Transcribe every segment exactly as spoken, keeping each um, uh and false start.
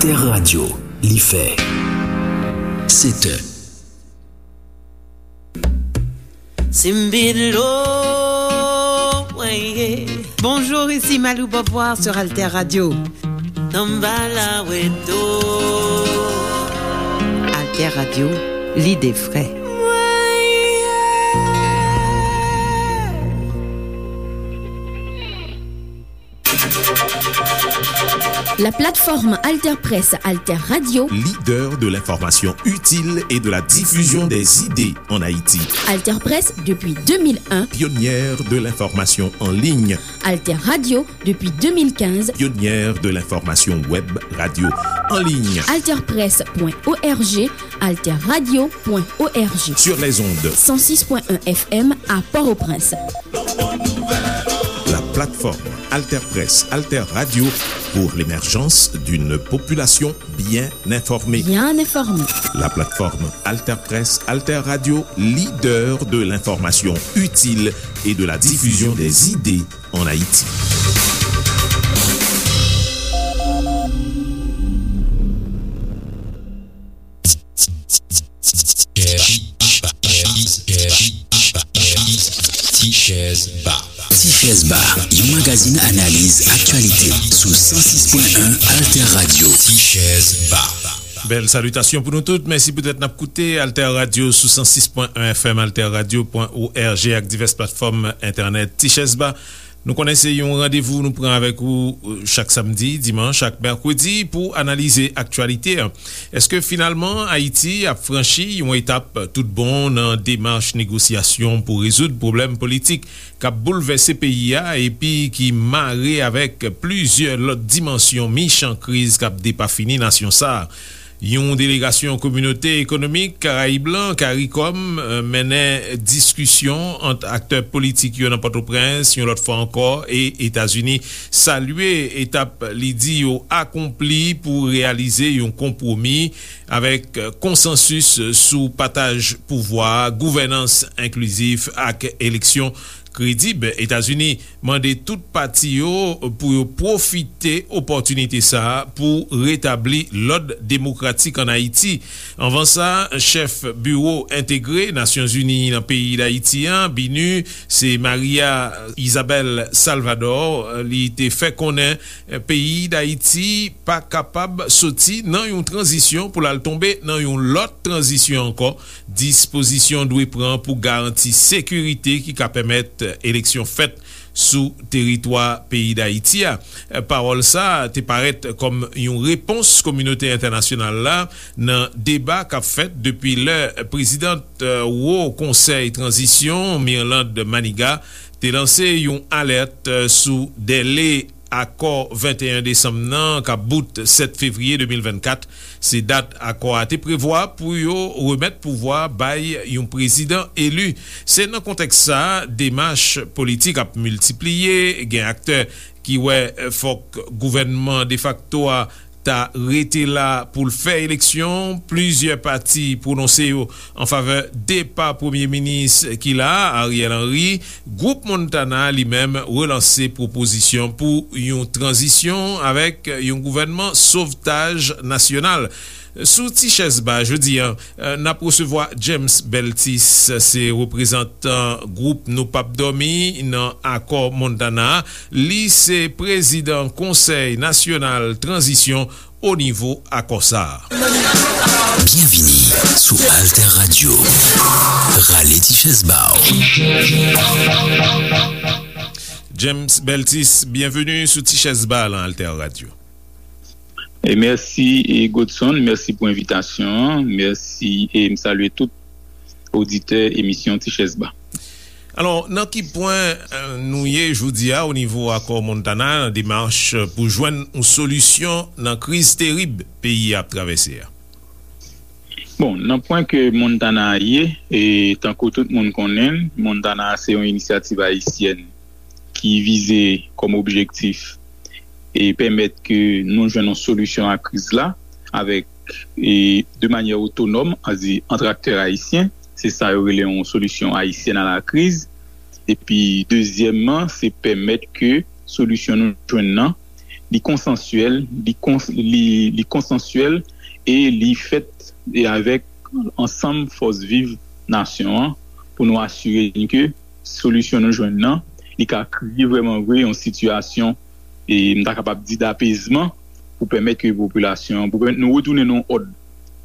Alter Radio, li fè sèt è. Simbilo, weye. Bonjour, ici Malou Beauvoir sur Alter Radio. Tambala weto. Alter Radio, lide fre. La plateforme Alter Presse, Alter Radio. Leader de l'information utile et de la diffusion des idées en Haïti. Alter Presse depuis deux mille un. Pionnière de l'information en ligne. Alter Radio depuis deux mille quinze. Pionnière de l'information web radio en ligne. Alter Presse point O R G, Alter Radio point O R G. Sur les ondes. Cent six point un F M à Port-au-Prince. La plateforme Alter Presse, Alter Radio pour l'émergence d'une population bien informée. Bien informée. La plateforme Alter Presse, Alter Radio, leader de l'information utile et de la diffusion des idées en Haïti. Ti Chèz Ba. Ti Chèz Ba, yon magazin analiz aktyalite sou san sis pwen en Alter Radio. Ti Chèz Ba. Bèl salitasyon pou nou tout. Mèsi poutèt n ap koute Alter Radio sou san sis pwen en F M, alter radio pwen O R G ak divès platfòm entènèt. Ti Chèz Ba, nou konnen se yon randevou nou pran avèk ou, euh, chak samdi, dimanch ak mèkredi pou analize aktyalite a. Èske finalman Ayiti ap franchi yon etap tout bon nan demach negosyasyon pou rezoud pwoblèm politik k ap boulvèse peyi a epi ki mare avèk plizyè lòt dimansyon michan kriz k ap depafini nasyon sa a? Yon delegasyon Kominote Ekonomik Karayib lan, karikòm, eh, mennen diskisyon ant aktè politik yo nan Pòtoprens, yon lòt fwa ankò, e Etazini salye etap li di yo akonpli pou reyalize yon konpwomi avèk, eh, konsansis sou pataj pouvwa, gouvènans enklizif ak eleksyon kredib. Etazini mande tout pati yo pou yo pwofite opòtinite sa a pou retabli lòd demokratik ann Ayiti. Anvan sa, chèf Biwo Entegre Nasyonzini nan peyi Dayiti an, BINUH, se Maria Isabel Salvador, li te fè konnen peyi Dayiti pa kapab soti nan yon tranzisyon pou l al tonbe nan yon lòt tranzisyon ankò. Dispozisyon dwe pran pou garanti sekirite ki ka pèmèt eleksyon fèt sou teritwa peyi Dayiti a. Pawòl sa a te parèt kòm yon repons kominote entènasyonal la nan deba k ap fèt depi lè prezidant, eh, Wo Konsèy Tranzisyon, Mirlande Manigat, te lanse yon alèt, eh, sou dèle akò venteyen desanm nan k ap bout sèt fevriye de mil vennkat. Se dat akò a te prevwa pou yo remèt pouvwa bay yon prezidan eli. Se nan kontèks sa a, demach politik ap miltipliye, gen aktè ki wè, eh, fòk gouvènman defakto a ta rete la pou l fè eleksyon. Plizyè pati pwononse yo an favè depa premye minis ki la a, Ariel Henry. Gwoup Montana, li menm, relanse pwopozisyon pou yon tranzisyon avèk yon gouvènman sovtaj nasyonal. Sou Ti Chèz Ba jodi a, eh, n ap resevwa James Beltis, se reprezantan gwoup Nou P ap Dòmi nan akò Montana a. Li se prezidan Konsèy Nasyonal Tranzisyon o nivo akò sa a. Byenvini sou Alter Radio. Rale ti chèz ba w. James Beltis, byenveni sou Ti Chèz Ba nan Alter Radio. E mèsi, e Godson, mèsi pou envitasyon an. Mèsi, e m salye tout oditè emisyon Ti Chèz Ba. Alò, nan ki pwen, eh, nou ye jodi a o nivo akò Montana nan demach pou jwenn yon solisyon nan kriz terib peyi a ap travèse a? Bon, nan pwen ke Montana a ye, e tankou tout moun konnen l, Montana a se yon inisyativ ayisyèn ki vize kòm objektif e pèmèt ke nou jwenn yon solisyon a kriz la avèk, e de manyè otonòm, ann di ant aktè ayisyen, se sa yo rele yon solisyon ayisyèn a la kriz. Epi dezyèmman, se pèmèt ke solisyon nou jwenn nan li konsansyèl, li, kons, li, li konsansyèl e li fèt e avèk ansanm fòs viv nasyon an pou nou asire n ke solisyon nou jwenn nan, li ka kreye vrèman vre yon sitiyasyon, e m ta kapab di, dapezman pou pèmèt ke popilasyon, pou pèmèt nou retounen nan yon òd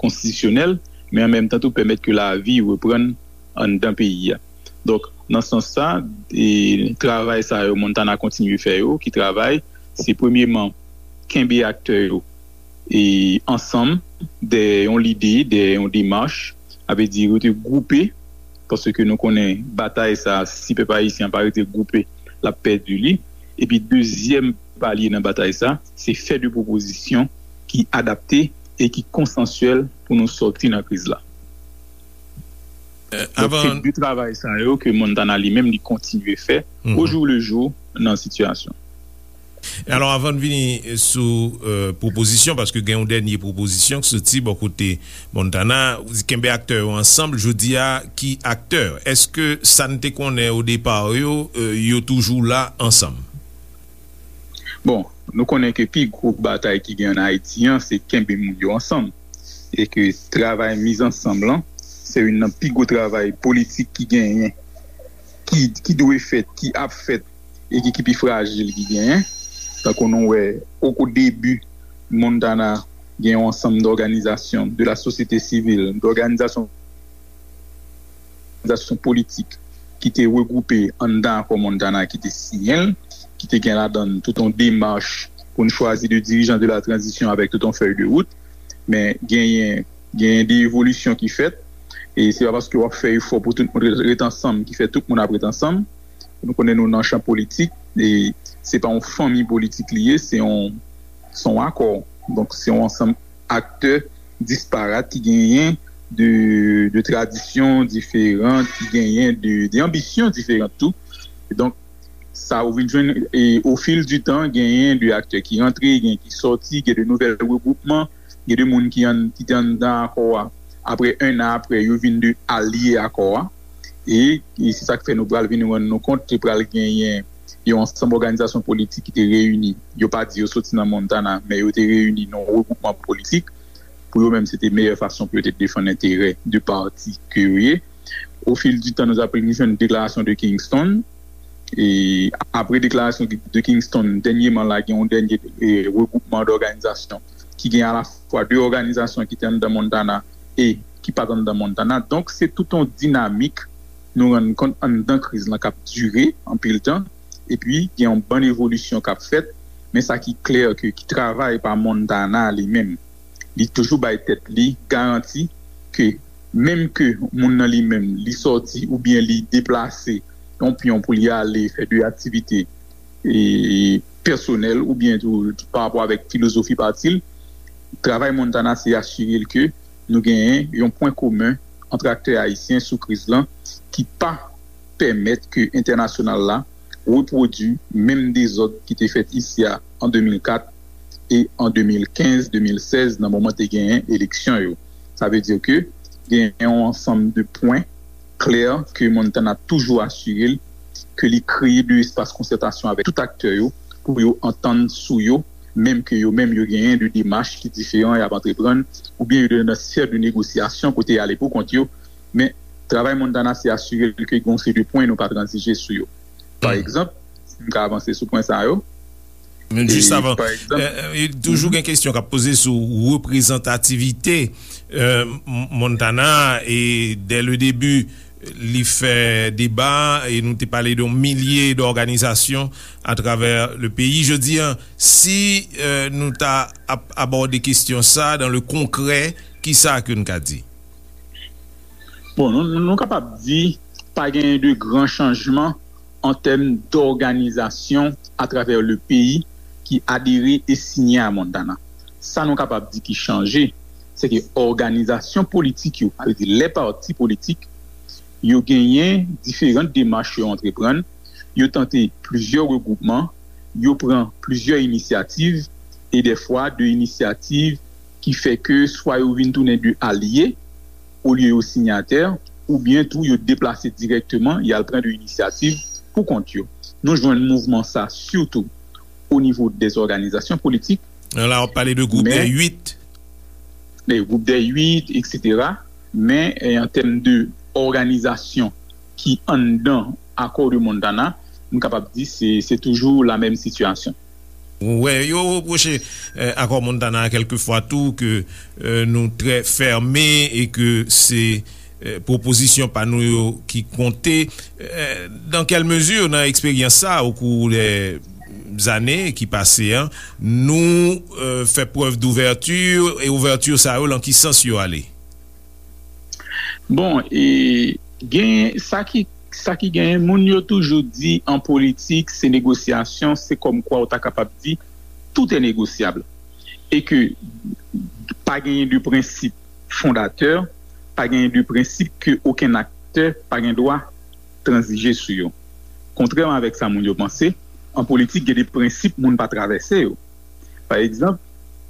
konstitisyonèl, men an menm tan tou pèmèt ke lavi reprann anndan peyi a. Donk, nan sans sa, e, travay sa yo Montana kontinye fè yo, ki travay, se premyeman kenbe aktè yo e ansanm dèyè yon lide, dèyè yon demach, sa vle di rete gwoupe, paske nou konnen batay sa, si pèp ayisyen an pa rete gwoupe, l ap pèdi li. Epi dezyèm palye nan batay sa, se fè de pwopozisyon ki adapte e ki konsansyèl pou nou sòti nan kriz la. Donk, se de travay sa yo ke Montana li menm li kontinye fè o jou le jou nan sitiyasyon. Alò, avan n vini sou pwopozisyon, paske gen yon dènye pwopozisyon k soti bò kote Montana, ou di kenbe aktè yo ansanm, jodi a, ki aktè? Èske sa n te konnen o depa yo, yo toujou la ansanm? Bon, nou konnen ke pi gwo batay ki gen ann Ayiti an, se kenbe moun yo ansanm. E ke travay miz ansanm lan, se youn nan pi gwo travay politik ki genyen, ki, ki dwe fèt, ki ap fèt, e ki, ki pi frajil ki genyen. Tankou nou wè, o, o debi, Montana gen yon ansanm dòganizasyon de la sosyete sivil, dòganizasyon òganizasyon politik ki te regwoupe anndan akò Montana ki te siyen l, ki te gen ladan l tout yon demach pou n chwazi de dirijan de la tranzisyon avèk tout yon fèy de wout. Men genyen, genyen de evolisyon ki fèt, e se pa paske w ap fè efò pou tout moun ret, ret ansanm ki fè tout moun ap ret ansanm. Nou konnen nou nan chan politik, e se pa yon fanmi politik li ye, se yon, se yon akò. Donk, se yon ansanm aktè disparat ki genyen de, de tradisyon diferan, ki genyen de, de anbisyon diferan tou. E donk, sa ou vin jwenn, e, au fil du temps, genyen de aktè ki rantre, gen ki sòti, gen de nouvèl regwoupman, gen de moun ki, an, ki te anndan akò a. Apre, en an apre, yo vin de alye akò a. E, e se sa k fè nou pral vin rann nou kont, te pral genyen yon ansanm òganizasyon politik ki te reyini. Yo pa di yo soti nan Montana, men yo te reyini nan yon regwoupman politik. Pou yo menm, se te meyè fason pou yo te defann enterè de pati ke yo ye. Au fil du temps, nou t ap vin jwenn deklarasyon de Kingston. E apre deklarasyon de Kingston, dènyèman la, gen yon dènye, e, regwoupman dòganizasyon ki gen alafwa de òganizasyon ki te anndan Montana e ki pa t anndan Montana. Donk, se tout yon dinamik nou rann kont anndan kriz lan k ap dire anpil tan. Epi, gen yon bann evolisyon k ap fèt. Men sa ki klè ke, ki travay pa Montana li menm, li toujou bay tèt li garanti ke menm ke moun nan li menm, li sòti oubyen li deplase yon pyon pou li ale fè de aktivite, e, pèsonèl oubyen tou pa rapò avèk filozofi pati l, travay Montana se asire l ke nou genyen yon pwen komen ant aktè ayisyen sou kriz lan ki pa pèmèt ke entènasyonal la repwodui menm dezòd ki te fèt isi a an de mil kat e an de mil kenz, de mil sèz, nan moman te genyen eleksyon yo. Sa vle di ke genyen yon ansanm de pwen klè ke Montana toujou asire l ke li kreye de espas konsètasyon avèk tout aktè yo pou yo antann sou yo, menm ke yo menm yo genyen de demach ki diferan y ap antreprann, oubyen yo nan sfè de negosyasyon kote y ale pou kont yo. Men, travay Montana se asire l ke gen yon seri de pwen nou pa tranzije sou yo. Pa egzanp, si m ka avanse sou pwen sa yo. Men jis avan, toujou gen kesyon k ap poze sou reprezantativite Montana, e dè le debi li fè deba, e nou te pale de yon milye dòganizasyon atravè le peyi. Jodi a, si nou ta ap abòde kesyon sa dan le konkrè, kisa ke n ka di? Bon, nou, nou kapab di pa genyen de gran chanjman an tèm dòganizasyon atravè le peyi ki adere e siyen a Montana. Sa nou kapab di ki chanje, se ke òganizasyon politik yo, sa vle di lè pati politik, yo genyen diferan demach yo antreprann, yo tante plizyè regwoupman, yo pran plizyè inisyativ, e dèfwa de inisyativ ki fè ke swa yo vin tounen de alye, olye yo sinyatè, oubyen tou yo deplase dirèkteman, y al pran de inisyativ pou kont yo. Nou jwenn mouvman sa sitou au niveau des organisations politiques. La, w ap pale de gwoup de men- 8. Le groupe des huit, et cetera. Men, eh, an tèm de òganizasyon ki anndan akò de Montana, m kapab di se, se toujou la menm sitiyasyon. Wè, yo repwoche eh, akò Montana a kèlkefwa tou ke eh, nou trè fèmen e ke se eh, pwopozisyon pa nou yo ki konte. Eh, dans quelle mesure, nan eksperyans sa, au cours des années ki pase an, nou eh, fè prèv d'ouverture e ouvèti sa yo, lan ki sans yo ale? Bon, e gen sa ki, sa ki genyen, moun yo toujou di an politik, se negosyasyon, se kòm kwa ou ta kapab di, tout est négociable. E ke pa genyen de prensip fondatè, pa genyen de prensip ke okenn aktè pa gen dwa tranzije sou yo. Kontrèman avèk sa moun yo panse, an politik, gen de prensip moun pa travèse yo. Pa egzanp,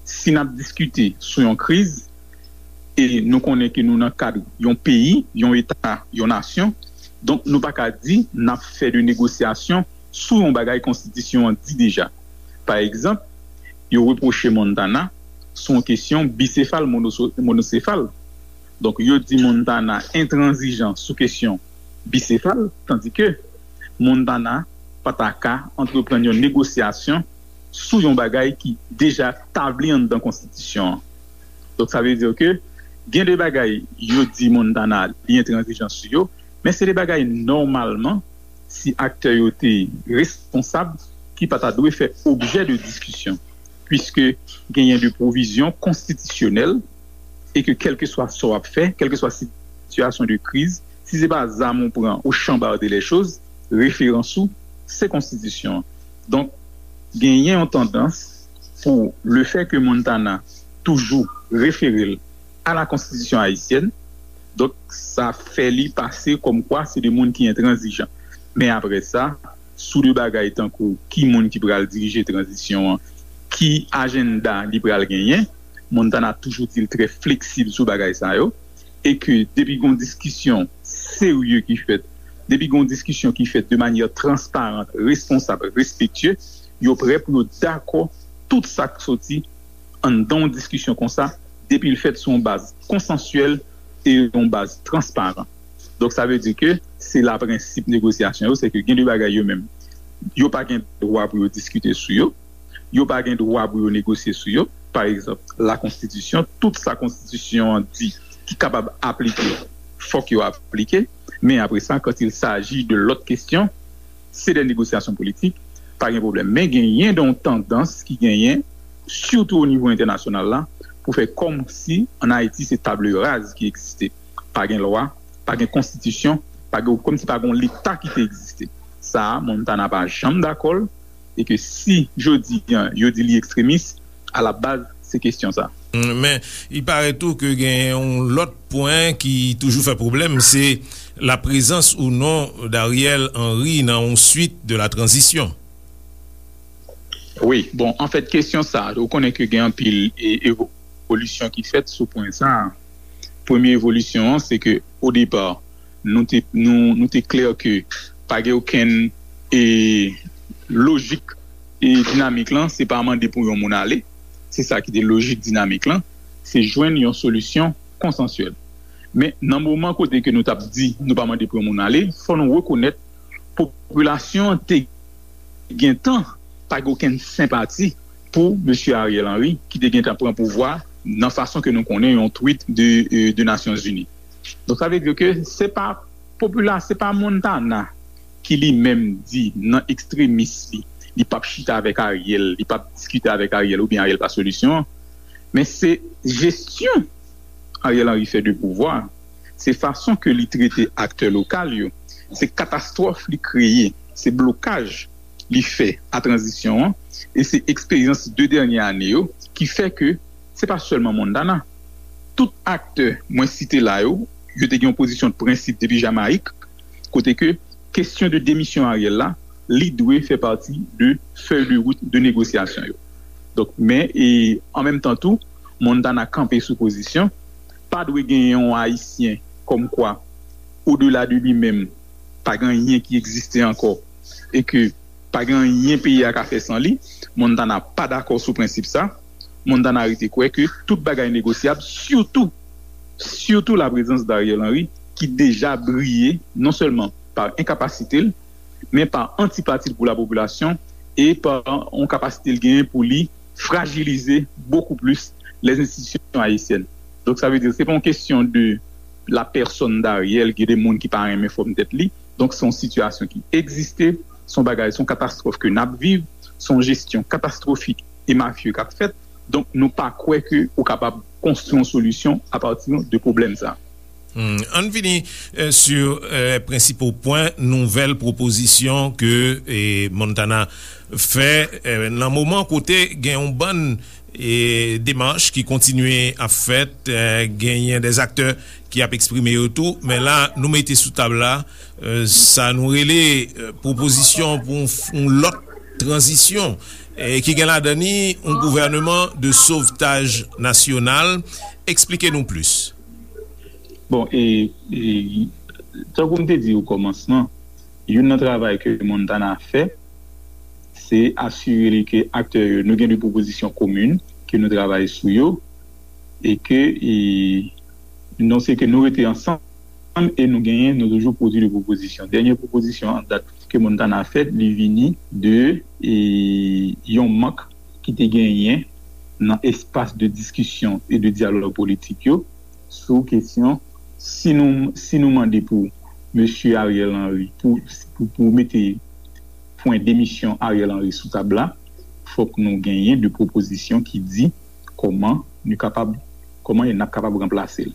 si n ap diskite sou yon kriz, e nou konnen ke nou nan kad yon peyi, yon eta, yon nasyon, donk nou pa ka di n ap fè de negosyasyon sou yon bagay konstitisyon an di deja. Pa egzanp, yo repwoche Montana sou yon kesyon bisefal, monoso- monosefal. Donk, yo di Montana entranzijan sou kesyon bisefal, tandike Montana pa ta ka antreprann yon negosyasyon sou yon bagay ki deja tabli anndan konstitisyon an. Donk, sa vle di ke gen de bagay yo di Montana li entranzijan sou yo, men se de bagay nòmalman, si aktè yo te responsab, ki pa ta dwe fè objè de diskisyon, puiske genyen de pwovizyon konstitisyonèl e ke kèlkeswa sa w ap fè, kèlkeswa sitiyasyon de kriz, si se pa zam ou pran ou chanbarde lè choz, referans ou, se konstitisyon an. Donk, genyen yon tandans pou le fè ke Montana toujou refere l a la konstitisyon ayisyèn, donk sa fè li pase kòm kwa se de moun ki entranzijan. Men apre sa, sou de bagay tankou ki moun ki pral dirije tranzisyon an, ki ajanda li pral genyen, Montana toujou di l trè fleksib sou bagay sa yo, e ke depi gon diskisyon serye ki fèt, depi gon diskisyon ki fèt de manyè transparan, responsab, respektye, yo prè pou yo dakò tout sa k soti anndan yon diskisyon konsa, depi l fèt sou yon baz konsansyèl e yon baz transparan. Donk, sa vle di ke se la prensip negosyasyon yo, se ke gen de bagay yo menm, yo pa gen dwa pou yo diskite sou yo, yo pa gen dwa pou yo negosye sou yo. Pa egzanp, la konstitisyon, tout sa konstitisyon an di ki kapab aplike, fòk yo aplike. Men apre sa, quand il s'agit de lòt kesyon, se de negosyasyon politik, pa gen pwoblèm. Men genyen de yon tandans ki genyen, sitou o nivo entènasyonal la, pou fè kòmsi ann Ayiti se table rase ki egziste. Pa gen lwa, pa gen konstitisyon, pa gen, kòmsi pa gen yon leta ki te egziste. Sa a, Montana pa janm dakò l, e ke si jodi an yo di li ekstremis, a la baz, se kesyon sa. Men, il paraît tou ke gen yon lòt pwen ki toujou fè pwoblèm, se la prezans ou non d'Ariel Henry nan yon suite de la transition. Wi, bon, anfèt, kesyon sa, ou konnen ke gen anpil e, evolisyon ki fèt sou pwen sa. Premye evolisyon an, se ke, o depa, nou te, nou, nou te klè ke pa gen okenn e, lojik e, dinamik lan, se pa mande pou yon moun ale. Se sa ki te lojik dinamik lan, se jwenn yon solisyon konsansyèl. Men, nan moman kote ke nou t ap di nou pa mande pou yon moun ale, fò nou rekonèt popilasyon an te gentan pa gen okenn senpati pou mesye Ariel Henry, ki te gentan pran pouvwa nan fason ke nou konnen yon tweet de, e, de Nasyonzini. Donk, sa vle di ke se pa popila-, se pa Montana ki li menm di nan ekstremis li, li p ap chita avèk Ariel, li p ap diskite avèk Ariel oubyen Ariel pa solisyon an. Men se jesyon Ariel Henry fè de pouvwa, se fason ke li trete aktè lokal yo, se katastwòf li kreye, se blokaj li fè a tranzisyon an, e se eksperyans de dènye ane yo ki fè ke se pa sèlman Montana. Tout aktè mwen site la yo, yo te gen yon pozisyon de prensip depi Jamayik, kote ke kesyon de demisyon Ariel la, li dwe fè pati de fèy de wout de negosyasyon yo. Donk, men, e an menm tan tou, Montana kanpe sou pozisyon, pa dwe gen yon Ayisyen kòmkwa, odela de li menm, pa gen anyen ki egziste ankò, e ke Pa gen anyen peyi a ka fè san li. Montana pa dakò sou prensip sa. Montana rete kwè ke tout bagay negosyab, sitou, sitou laprezans Dariel Henry, ki deja briye non sèlman pa enkapasite l, men pa antipati l pou lapopilasyon e pa yon kapasite l genyen pou li frajilize bokou plis les institutions haïtiennes. Donk, sa vle di, se pa yon kesyon de la pèsòn Dariel, gen de moun ki pa renmen fòm tèt li. Donk, se yon sitiyasyon ki egziste, se yon bagay, se yon katastwòf ke n ap viv, se yon jesyon katastwofik e mafye k ap fèt. Donk, nou pa kwè ke ou kapab konstwi yon solisyon apati de pwoblèm sa. Hmm, ann vini eh, sou eh, prensipal pwen nouvèl pwopozisyon ke eh, Montana fè eh, nan moman kote gen yon bann eh, demach ki kontinye ap fèt, eh, genyen dè aktè ki ap eksprime yo tou, men la nou mete sou tab la eh, sa nou rele eh, pwopozisyon pou yon f- yon lòt tranzisyon eh, ki gen ladan ni yon gouvèneman de sovtaj nasyonal. Eksplike nou plis. Bon, e, e tankou m te di o kòmansman, youn nan travay ke Montana fè, se asire li ke aktè yo, nou gen de pwopozisyon komin ke nou travay sou yo, e ke e, non se ke nou rete ansanm e nou genyen, nou toujou pwodui de pwopozisyon. Dènye pwopozisyon an dat ke Montana fè, li vini de e, yon mank ki te genyen nan espas de diskisyon e de dyalòg politik yo sou kesyon si nou si nou mande pou mesye Ariel Henry pou pou, pou mete pwen demisyon Ariel Henry sou tab la, fòk nou genyen de pwopozisyon ki di kòman nou kapab kòman n ap kapab ranplase l.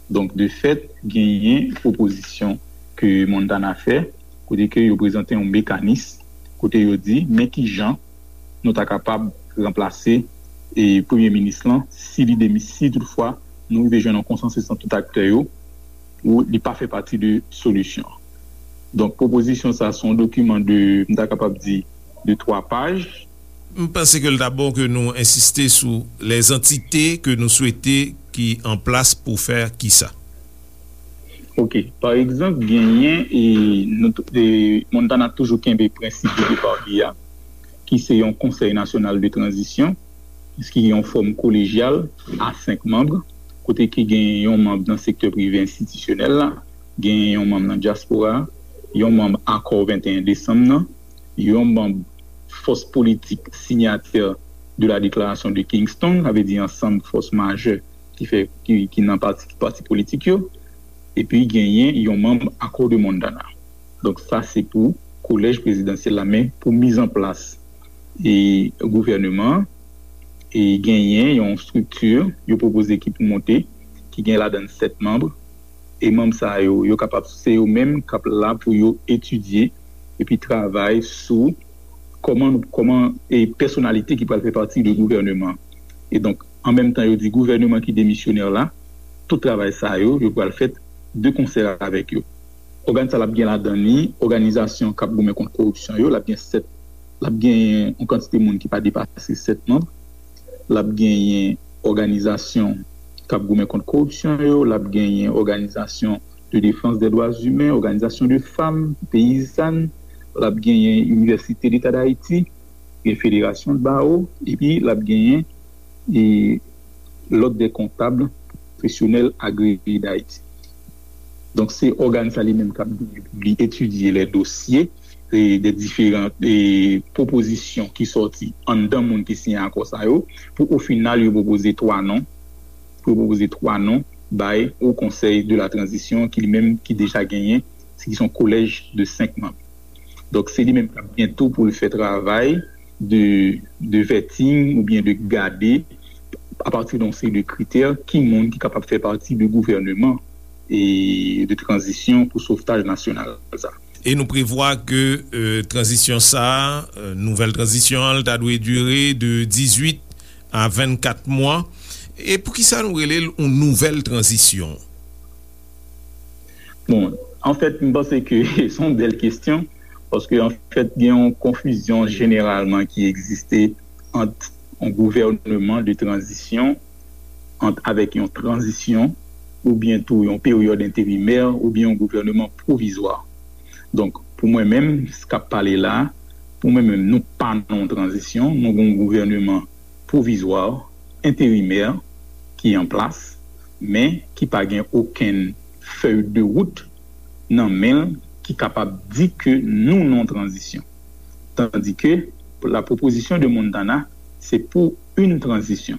Donk de fèt genyen pwopozisyon ke Montana fè kote ke yo prezante yon mekanis kote yo di men kijan nou ta kapab ranplase e premye minis lan si li demi si toutfwa nou rive jwenn yon konsansis ant tout aktè yo ou li pa fè pati de solisyon an. Donk pwopozisyon sa se yon dokiman de m ta kapab di de twa paj. M panse ke l ta bon ke nou ensiste sou lèzantite ke nou swete ki an plas pou fè kisa. Ok, pa egzanp, genyen e, nou, e Montana toujou kenbe prensip de depa li a, ki se yon konsèy nasyonal de tranzisyon, ki yon fòm kolejyal a senk manm, kote ki gen yon manm nan sektè prive enstitisyonèl la, gen yon manm nan dyaspora, yon manm akò venteyen desanm nan, yon manm fòs politik sinyatè de la Déclaration de Kingston, sa vle di ansanm fòs majè ki fè ki, ki nan pati, pati politik yo, epi genyen yon manm Accord de Montana. Donk sa se pou kolèj prezidansyèl la, men pou mizanplas e gouvèneman an, e genyen yon estrikti yo pwopoze ki pou monte, ki gen ladan l sèt manm, e manm sa yo, yo kapab se yo menm k ap la pou yo etidye epi travay sou kòman nou kòman e pèsonalite ki pral fè pati de gouvèneman. E donk, an menm tan yo di gouvèneman ki demisyonè la, tout travay sa yo, yo pral fèt de konsè avèk yo. Ògàn sa l ap gen ladan li òganizasyon k ap goumen kont koripsyon yo, l ap gen sèt, l ap gen yon kantite moun ki pa depase sèt manm, l ap genyen òganizasyon k ap goumen kont koripsyon yo, l ap genyen òganizasyon de defans dè dwa imen, òganizasyon de fanm, peyizann, l ap genyen Inivèsite Leta d Ayiti, gen Federasyon Bawo, epi l ap genyen e lòd dè kontab pwofesyonèl agreye d Ayiti. Donk se ògàn sa li menm k ap genyen pou li etidye lè dosye e de diferan e pwopozisyon ki sòti anndan moun ki siyen akò sa yo, pou o final yo pwopoze twa non, pou yo pwopoze twa non bay o konsèy de la tranzisyon ki li menm ki deja genyen, se ki se yon kolèj de senk manm. Donk se li menm k ap gen tou pou l fè travay de, de vetting oubyen de gade apati de yon seri de kritè ki moun ki kapab fè pati de gouvèneman e de tranzisyon pou sovtaj nasyonal sa. E nou prevwa ke euh, tranzisyon sa a, euh, nouvèl tranzisyon an, l ta dwe dire de dizuit a vennkat mwa. E poukisa nou rele l yon nouvèl tranzisyon? Bon, anfèt, m panse ke se yon bèl kesyon, paske anfèt, gen yon konfizyon jeneralman ki egziste ant yon gouvèneman de tranzisyon, ant avèk yon tranzisyon, oubyen tou yon peryòd enterimè, oubyen yon gouvèneman pwovizwa. Donk, pou mwen menm, s k ap pale la, Pou mwen menm, nou pa nan yon tranzisyon, nou gen yon gouvèneman pwovizwa, enterimè, ki an plas, men ki pa gen okenn fèy de wout nan men l ki kapab di ke nou nan yon tranzisyon. Tandis que la proposition de Montana, c'est pour une transition.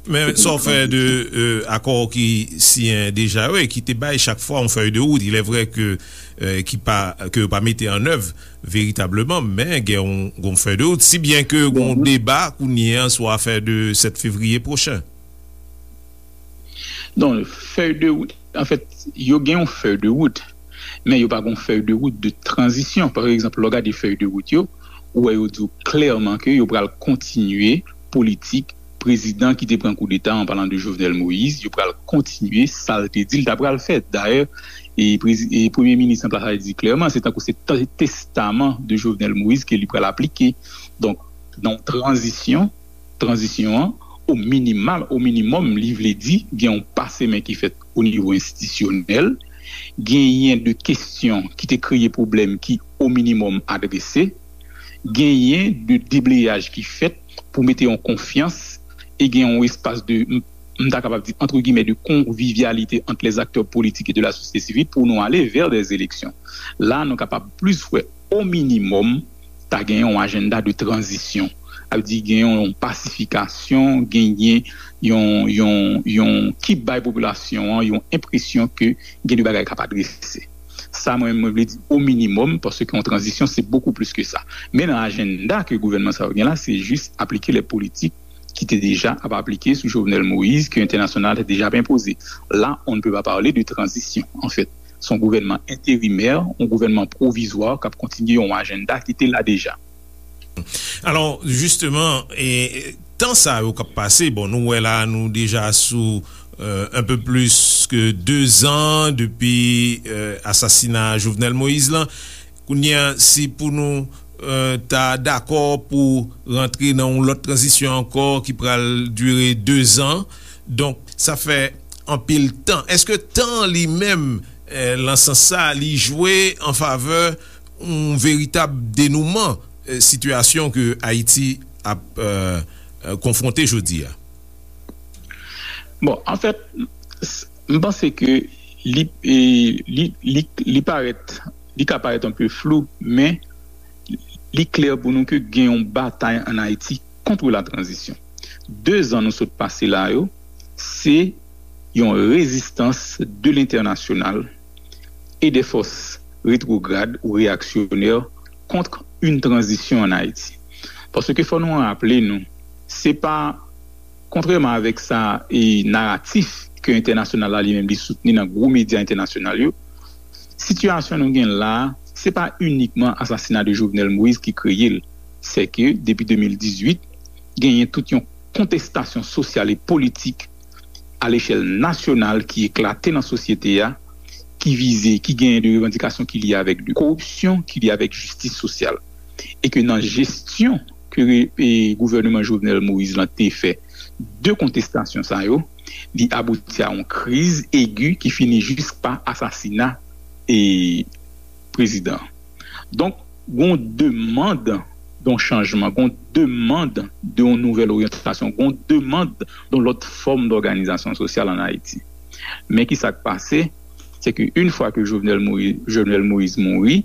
Men sa w fè de euh, akò ki siyen deja yo e ki te bay chak fwa yon fèy de wout. Il est vrai que euh, ki pa ke yo pa mete an èv veritableman, men gen yon, yon fèy de wout. Si byen ke gen yon deba kounye an sou afè de sèt fevriye pwochen. Non, fèy de wout, anfèt, yo gen yon fèy de wout, men yo pa gen yon fèy de wout de tranzisyon. Pa egzanp, lè w gade fèy de wout yo, ou wè yo di w klèman ke yo pral kontinye politik prezidan ki te pran koudeta, an palan de Jovenel Moïse, yo pral kontinye sa l te di l ta pral fè. Dayè, e, prezi- e premye minis an plas la di klèman, se tankou se te- testaman de Jovenel Moïse ke li pral aplike. Donk, nan yon tranzisyon, tranzisyon an, o minimal, o minimòm, li vle di gen yon pase men ki fèt o nivo enstitisyonèl, genyen de kesyon ki te kreye pwoblèm ki o minimòm adrese, genyen de debleyaj ki fèt pou mete yon konfyans e gen yon espas de, m ta kapab di, entre guillemets, de convivialité entre les acteurs politiques et de la société civile pour nous aller vers des élections. La, nou kapab plis wè o minimòm ta gen yon ajanda de tranzisyon. Sa vle di gen yon pasifikasyon, genyen yon, yon, yon ki bay popilasyon an yon enpresyon ke gen de bagay k ap adrese. Sa mwen, mwen vle di o minimòm, paske yon tranzisyon se bokou plis ke sa. Men nan ajanda ke gouvènman sa yo gen la, se jis aplike lè politik ki te deja ap aplike sou Jovenel Moïse, ke entènasyonal te deja ap enpoze. La, on ne peut pas parler de transition, en fait. Se yon gouvènman enterimè, yon gouvènman pwovizwa k ap kontinye yon ajanda ki te la deja. Alò, jisteman, e, tan sa yo k ap pase, bon, nou wè la, nou deja sou euh, un peu plus que deux ans depi euh, asasina Jovenel Moïse lan. Kounye a, si pou nou euh, ta dakò pou rantre nan yon lòt tranzisyon ankò ki pral dire de zan, donk sa fè anpil tan. Èske tan li menm euh, lan sans sa li jwe an favè yon veritab denouman euh, sitiyasyon ke Ayiti ap euh, euh, konfwonte jodi a? Bon, anfèt, m panse ke li, li, li, li parèt, li ka parèt anpe flou, men li klè pou nou ke gen yon batay ann Ayiti kont la tranzisyon. De zan nou sot pase la yo, se yon rezistans de lentènasyonal e de fòs retwograd ou reyaksyonè kont yon tranzisyon ann Ayiti. Paske fò nou raple nou, se pa, kontrèman avèk sa e naratif ke entènasyonal la li menm li soutni nan gwo medya entènasyonal yo, sitiyasyon nou gen la, se pa inikman asasina de Jovenel Moïse ki kreye l. Se ke depi de mil dizuit, genyen tout yon kontestasyon sosyal e politik a lechèl nasyonal ki eklate nan sosyete a, ki vize, ki genyen de revandikasyon ki lye avèk de koripsyon, ki lye avèk jistis sosyal. E ke nan jesyon ke re- e gouvèneman Jovenel Moïse lan te fè de kontestasyon sa yo, li abouti a yon kriz egi ki fini jis pa asasina e prezidan. Donk, gon demann de yon chanjman, gon demann de yon nouvèl oryantasyon, gon demann de yon lòt fòm dòganizasyon sosyal ann Ayiti. Men ki sa k pase, se ke yon fwa ke Jovenel Moïse, Jovenel Moïse mouri,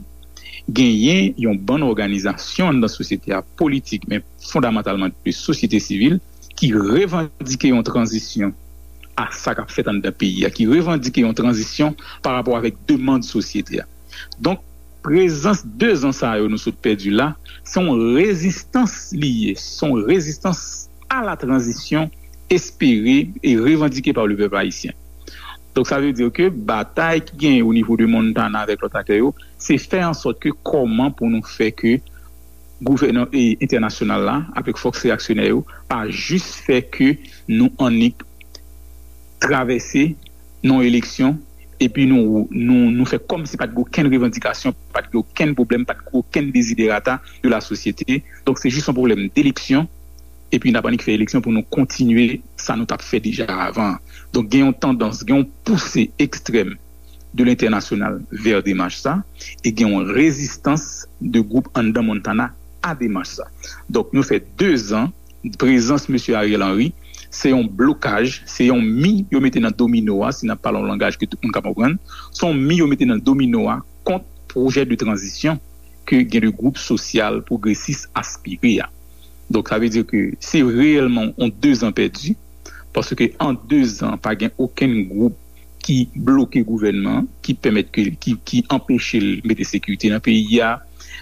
genyen yon bann òganizasyon anndan sosyete a politik, men fondamantalman de sosyete sivil, ki revandike yon tranzisyon a sa k ap fèt anndan peyi a, ki revandike yon tranzisyon pa rapò avèk demann sosyete a. Donk, prezans de zan sa yo nou sot pèdi la, se yon rezistans li ye, se yon rezistans a la tranzisyon espere e revandike pa le pèp ayisyen. Donk, sa vle di ke batay ki genyen o nivo de Montana avèk lòt aktè yo, se fè an sòt ke kòman pou nou fè ke gouvènman e entènasyonal la, avèk fòs reyaksyonè yo, pa jis fè ke nou annik travèse nan eleksyon, epi nou, nou, nou fè kòmsi pa t gen okenn revandikasyon, pa t gen okenn pwoblèm, pa t gen okenn deziderata de la sosyete. Donk, se jis yon pwoblèm deleksyon, epi n ap annik fè eleksyon pou nou kontinye sa nou t ap fè deja avan. Donk, gen yon tandans, gen yon pouse ekstrèm de lentènasyonal vè demach sa, e gen yon rezistans de gwoup anndan Montana a demach sa. Donk, nou fè dezan, prezans mesye Ariel Henry, se yon blokaj, se yon mi yo mete nan domino a, si n ap pale yon langaj ke tout moun ka konprann, se yon mi yo mete nan domino a kont pwojè de tranzisyon ke gen de gwoup sosyal pwogresis aspire a. Donk, sa vle di ke se reyèlman yon dezan pèdi, paske an dezan, pa gen okenn gwoup ki bloke gouvènman, ki pèmèt ke, ki, ki anpeche l mete sekirite nan peyi a,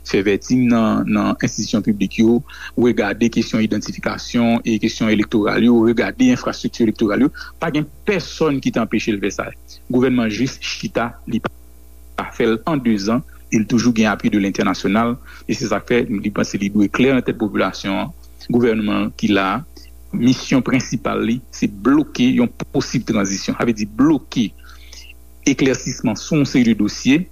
fè vèting nan, nan enstitisyon piblik yo, regade kesyon idantifikasyon e kesyon elektoral yo, regade enfrastrikti elektoral yo. Pa gen pèsòn ki te anpeche l fè sa. Gouvènman jis chita, li pa fè l an dezan, e l toujou gen apui de lentènasyonal, e se sa k fè li panse li dwe klè nan tèt popilasyon an. Gouvènman ki la a, misyon prensipal li, se bloke yon posib tranzisyon. Sa vle di bloke eklèsisman sou yon seri de dosye,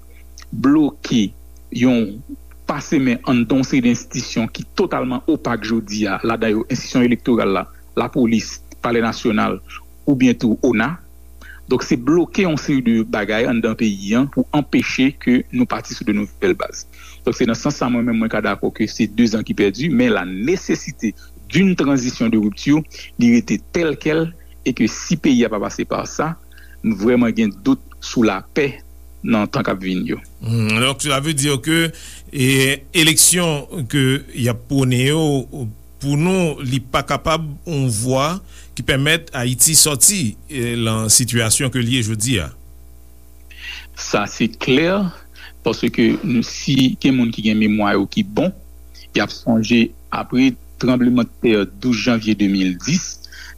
bloke yon pase men anndan yon seri de enstitisyon ki totalman opak jodi a, ladan yo enstitisyon elektoral la, lapolis, palè nasyonal, oubyen tou ona. Donk, se bloke yon seri de bagay anndan peyi an pou anpeche ke nou pati sou de nouvèl baz. Donk, se nan sans sa, mwen menm, mwen ka dakò ke se dezan ki pèdi, men la nesesite d'une transition de rupture, li rete tèl kèl, e ke si peyi a pa pase pa sa, m vrèman gen dout sou lapè nan tan k ap vini yo. Hmm, donk, sa vle di ke, e, eleksyon ke y ap pwone yo, pou nou, li pa kapab yon vwa ki pèmèt Ayiti sòti, e, lan sitiyasyon ke l ye jodi a. Sa se klè, paske nou, si gen moun ki gen memwa yo ki bon, y ap sonje apre tranblemanntè douz janvye de mil dis,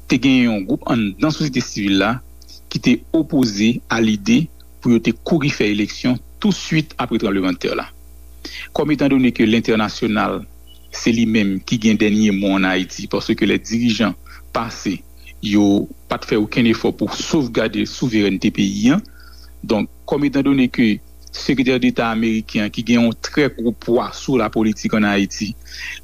te gen yon gwoup anndan sosyete sivil la ki te opoze a lide pou yo te kouri fè eleksyon tousuit apre tranblemanntè la. Kòm etandone ke lentènasyonal se li menm ki gen dènye mo ann Ayiti, paske lè dirijan pase, yo pa t fè okenn efò pou sovgade souverènte peyi an. Donk, kòm etandone ke sekretè deta ameriken an, ki gen yon trè gwo pwa sou lapolitik ann Ayiti,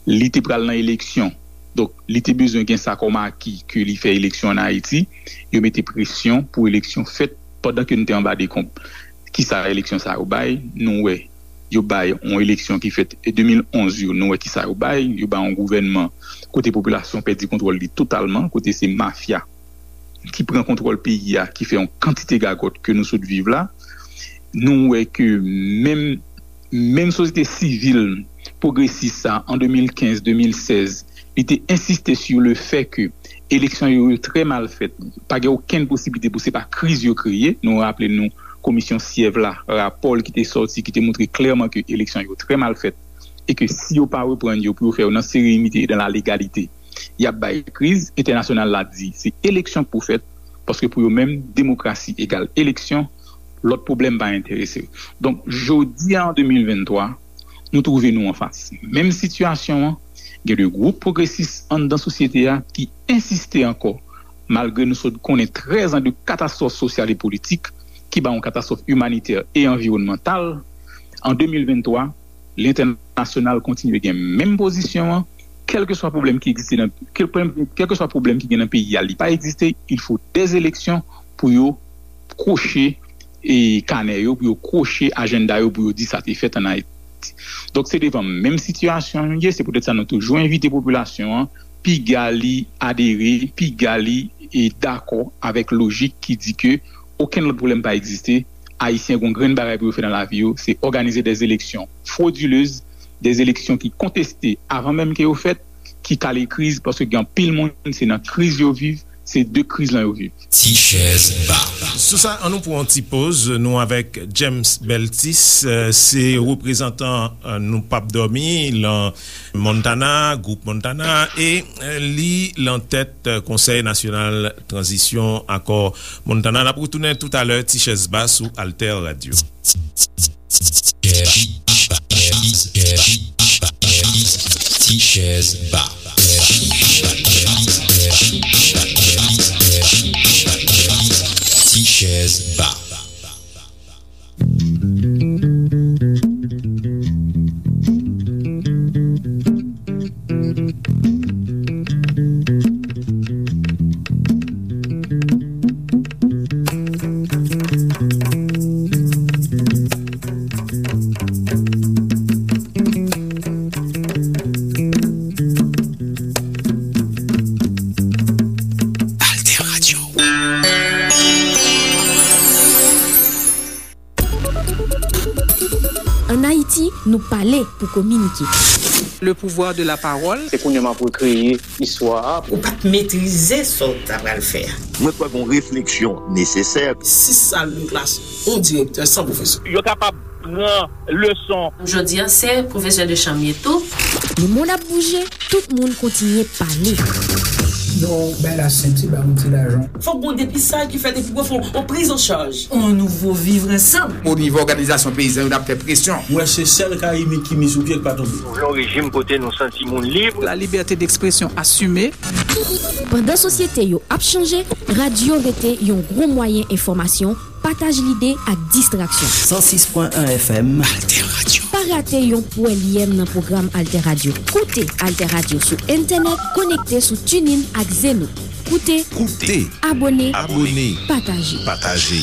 li te pral nan eleksyon. Donk, li te bezwen gen sa kòm aki ke li fè eleksyon ann Ayiti. Yo mete presyon pou eleksyon fèt pandan ke nou te anba dekonb. Kisa eleksyon sa yo bay? Nou wè, yo bay yon eleksyon ki fèt e de mil onz yo, nou wè kisa yo bay. Yo bay yon gouvènman kote popilasyon pèdi kontwòl li totalman, kote se mafya ki pran kontwòl peyi a, ki fè yon kantite gagòt ke nou sot viv la. Nou wè ke menm, menm sosyete sivil pwogresis sa, an de mil kenz, de mil sèz, li te ensiste sur le fait que eleksyon yo, yo trè mal fèt. Pa gen okenn posiblite pou se pa kriz yo kreye. Nou raple nou komisyon Syèv la, rapò l ki te sòti, ki te montre klèman ke eleksyon yo trè mal fèt e ke si yo pa reprann yo pou yo fè yo nan serenite e dan la legalite, y ap bay kriz. Entènasyonal la di se eleksyon k pou fèt, paske pou yo menm, demokrasi egal eleksyon, lòt pwoblèm pa enterese yo. Donk, jodi a, an de mil venntwa, nou twouve nou anfas menm sitiyasyon an. Gen de gwoup pwogresis anndan sosyete a ki ensiste ankò, malgre nou sot konnen trèz an de katastwòf sosyal e politik, ki ba yon katastwòf imanitè e anviwònmantal. An de mil venntwa, lentènasyonal kontinye gen menm pozisyon an, kèlkeswa pwoblèm ki egziste nan, kèl-, kèlkeswa pwoblèm ki gen nan peyi a, li pa egziste, il faut des élections pou yo kwoche e kanè yo, pou yo kwoche ajanda yo, pou yo di sa te fèt ann Ayiti. Donk, se devan menm sitiyasyon nou ye, se poutèt sa nou toujou envite popilasyon an, piga li adere, piga li e dakò avèk lojik ki di ke okenn lòt pwoblèm pa egziste, Ayisyen gen yon grenn bagay pou yo fè nan lavi yo, se òganize des élections frauduleuses, des élections ki konteste avan menm ke yo fèt, ki kale kriz, paske gen anpil moun, se nan kriz yo viv, se de kriz lan yo viv. Ti chèz ba. Sou sa, ann nou pran yon ti poz, nou avèk James Beltis, eh, se reprezantan, eh, Nou P ap Dòmi, lan Montana, gwoup Montana, e, eh, li lan tèt, eh, Konsèy Nasyonal Tranzisyon Akò Montana. N ap retounen toutalè, Ti Chèz Ba sou Alter Radio. Ti chèz ba. Ti chèz ba. Ou pale pou kominike. Le pouvoir de la parole. Se kounye a m ap rekreye istwa a. Ou pa t metrize sa w ta pral fè a. Mwen kwè gon refleksyon nesesè. Sis sal de klas, yon direktè san pwofesè. Yo kapab pran leson. Jodi a se pwofesè de chanm ye tou. Lemonn ap bouje, tout moun kontinye pale. Yo bay la senti ba yon ti lajan. Fòk gon depistaj ki fèt epi pou fè yon priz an chaj. On nouvo vivre ansanm. O nivo òganizasyon peyizan yo n ap fè presyon. Mwen se sèl ka imi ki mi sou pye k pa tonbe. Nou vle yon rejim kote nou santi moun lib. La liberté d'expression assumée. Pandan sosyete yo ap chanje, radyo rete yon gwo mwayen enfòmasyon, pataj lide ak distraksyon. San sis pwen en F M. Alter Radio. Pa rate yon pwèlyèm nan pwogram Alter Radio. Koute Alter Radio sou entènèt, konekte sou TuneIn ak Zeno. Koute, koute, abòne, abòne, pataje. Pataje.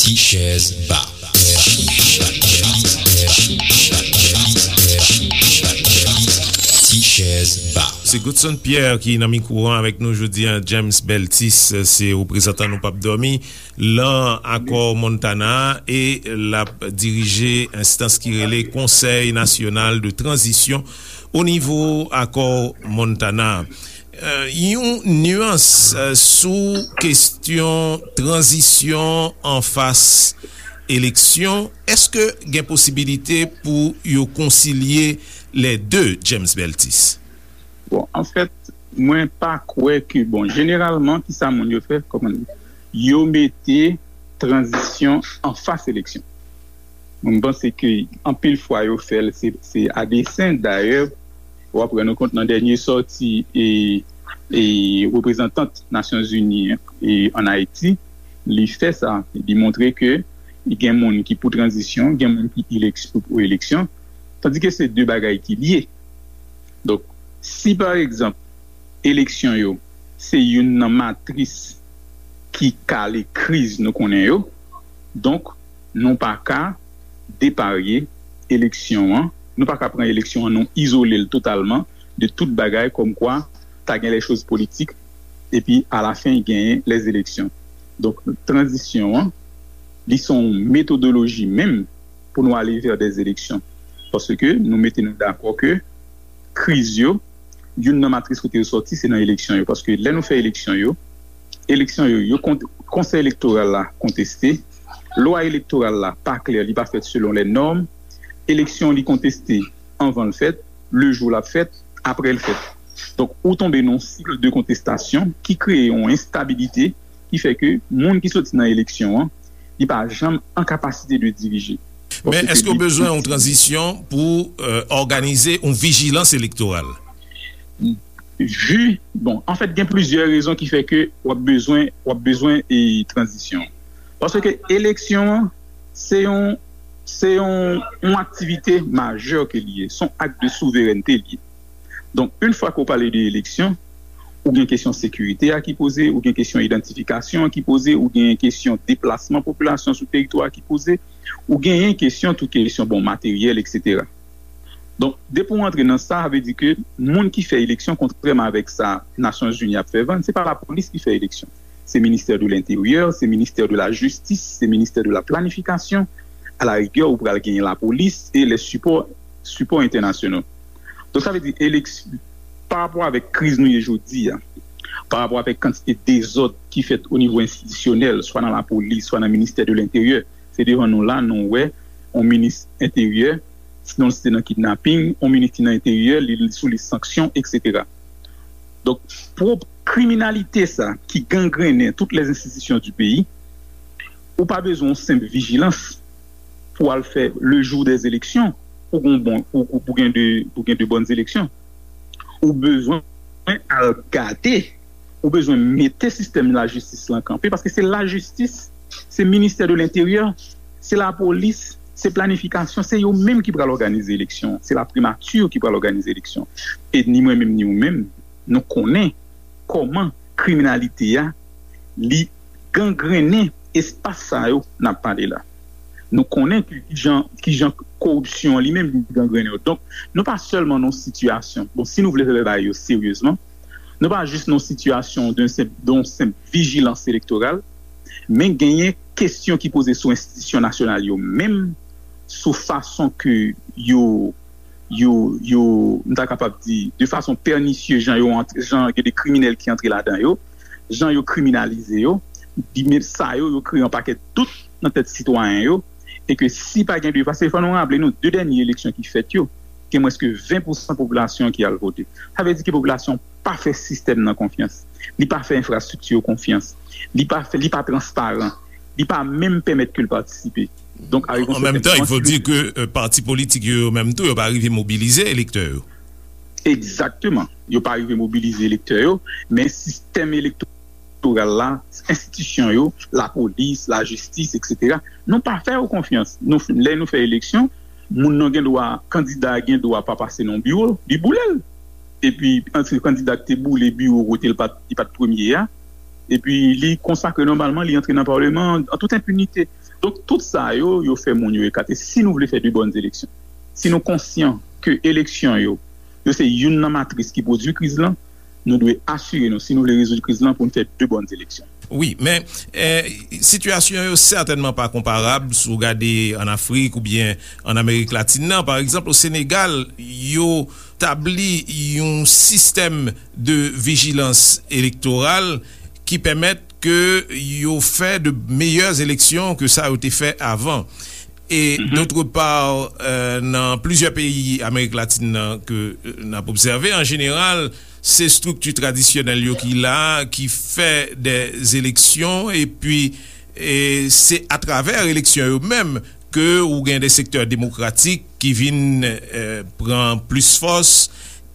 Ti chèz ba. Ti chèz ba. Se Godson Pierre ki nan mikwo an avèk nou jodi a. James Beltis se reprezantan Nou P ap Dòmi lan akò Montana a e l ap dirije enstans ki rele Konsèy Nasyonal de Tranzisyon o nivo akò Montana a. Yon nyans sou kestyon tranzisyon anfas eleksyon, èske gen posibilite pou yo konsilye lè de, James Beltis? Bon, anfèt, mwen pa kwè ke, bon, jeneralman, kisa moun yo fè, kòman, yo mete tranzisyon anfas eleksyon. Mwen, m panse ke anpil fwa yo fè l, se, se a desen. Dayè, w ap rann ou kont nan dènye sòti e, e reprezantant Nasyonzini e ann Ayiti, li fè sa. Li montre ke gen moun ki pou tranzisyon, gen moun ki eleksyon, pou eleksyon, tandike se de bagay ki lye. Donk, si pa egzanp, eleksyon yo se youn nan matris ki kale kriz nou konnen yo, donk, nou pa ka deparye eleksyon an, nou pa ka pran eleksyon an, nou izole l totalman de tout bagay, kòmkwa ta gen les choses politiques, epi alafen genyen les élections. Donk, tranzisyon an, li se yon metodoloji menm pou nou ale vè des élections. Paske nou mete nou dakò ke kriz yo, youn nan matris kote yo sòti, se nan eleksyon yo. Paske lè nou fè eleksyon yo, eleksyon yo, yo kont-, konsèy elektoral la konteste, lwa elektoral la pa klè, li pa fèt selon les normes, eleksyon li konteste anvan l fèt, le jou l ap fèt, apre l fèt. Donk, ou tonbe nan yon sik de kontestasyon ki kreye yon enstabilite ki fè ke moun ki soti nan eleksyon an, li pa janm an kapasite de dirije. Men èske w bezwen yon tranzisyon pou òganize yon vijilans elektoral? Vu, bon, anfèt, gen plizyè rezon ki fè ke w ap bezwen, w ap bezwen e tranzisyon. Paske eleksyon an, se yon, se yon, yon aktivite majè ke li ye, se yon ak de souverènte li ye. Donk, yon fwa ke w pale de eleksyon, ou gen kesyon sekirite a ki poze, ou gen kesyon idantifikasyon an ki poze, ou gen kesyon deplasman popilasyon sou teritwa a ki poze, ou genyen kesyon tou kesyon, bon, materyèl, etsetera. Donk, depi w antre nan sa, sa vle di ke moun ki fè eleksyon, kontrèman avèk sa Nasyonzini ap fè vann, se pa lapolis ki fè eleksyon. Se ministè de lenteryè, se ministè de la jistis, se ministè de la planifikasyon. A la rigè, ou pral genyen lapolis e lè sipò, sipò entènasyonal. Donk, sa vle di, eleks-, pa rapò avèk kriz nou ye jodi a, pa rapò avèk kantite dezòd ki fèt o nivo enstitisyonèl, swa nan lapolis, swa nan ministè de lenteryè, se devan nou la, nou wè, yon minis enteryè, sinon l se nan kidnaping, yon minis ki nan enteryè, li, li sou lis sanksyon, etsetera. Donk, pwòp kriminalite sa ki gangrennen tout les institutions du pays, ou pa bezwen yon senp vijilans pou al fè le jour des élections, ou gon bon, ou, ou, ou gen de, ou gen de bonnes élections. Ou bezwen al gade, ou bezwen mete sistèm lajistis lan kanpe, paske se lajistis, se ministè de lenteryè, se lapolis, se planifikasyon, se yo menm ki pral òganize eleksyon, se la primati ki pral òganize eleksyon. E ni mwen menm, ni ou menm, nou konnen kòman kriminalite a, li gangrennen espas sa yo n ap pale la. Nou konnen ki jan, ki jan koripsyon an li menm li gangrennen yo. Donk, nou pa sèlman nan yon sitiyasyon, bon, si nou vle fè bagay yo seryezman, nou pa jis nan yon sitiyasyon de senp, de yon senp vijilans elektoral, men genyen kesyon ki poze sou enstitisyon nasyonal yo menm, sou fason ke yo, yo, yo, m ta kapab di, de fason pènisye, jan yo antre, jan gen de kriminèl ki antre ladan yo, jan yo kriminalize yo, di men sa yo, yo kreye yon pakèt dout nan tèt sitwayen yo, e ke si pa gen de, paske fò nou raple nou, de dènye eleksyon ki fèt yo, gen mwens ke ven pousan popilasyon ki al vote. Sa vle di ke popilasyon pa fè sistèm nan konfyans. Li pa fè enfrastrikti yo konfyans. Li pa fè, li pa transparan. Li pa menm pèmèt ke l patisipe. Donk, a An menm tan, il faut dire que euh, pati politik yo, yo menm tou, yo pa rive mobilize elektè yo. Egzakteman. Yo pa rive mobilize elektè yo, men sistèm elektoral la, enstitisyon yo, lapolis, lajistis, etsetera, nou pa fè yo konfyans. Nou, lè nou fè eleksyon, moun nan gen dwa, kandida a gen dwa pa pase nan biwo, li boule l. Epi, antre kandida ki te boule biwo kote l pa t, li pa t premye a, epi li konsakre nòmalman, li antre nan palman an, an tout enpinite. Donk, tout sa yo, yo fè moun yo ekate. Si nou vle fè de bòn eleksyon, si nou konsyan ke eleksyon yo, yo se youn nan matris ki pwodui kriz lan, nou dwe asire nou, si nou vle rezoud kriz lan, pou n fè de bòn eleksyon. Wi, men eh, sitiyasyon yo sètènman pa konparab si w gade ann Afrik oubyen ann Amerik Latin nan. Pa egzanp, o Senegal, yo tabli yon sistèm de vijilans elektoral ki pèmèt ke yo fè de meyè eleksyon ke sa yo te fè avan. E d'autre part, euh, nan plizyè peyi Amerik Latin nan ke euh, n ap obsève, an jeneral, se estrikti tradisyonèl yo ki la, ki fè de eleksyon, epi e se atravè eleksyon yo menm ke ou gen de sektè demokratik ki vin euh, pran plis fòs,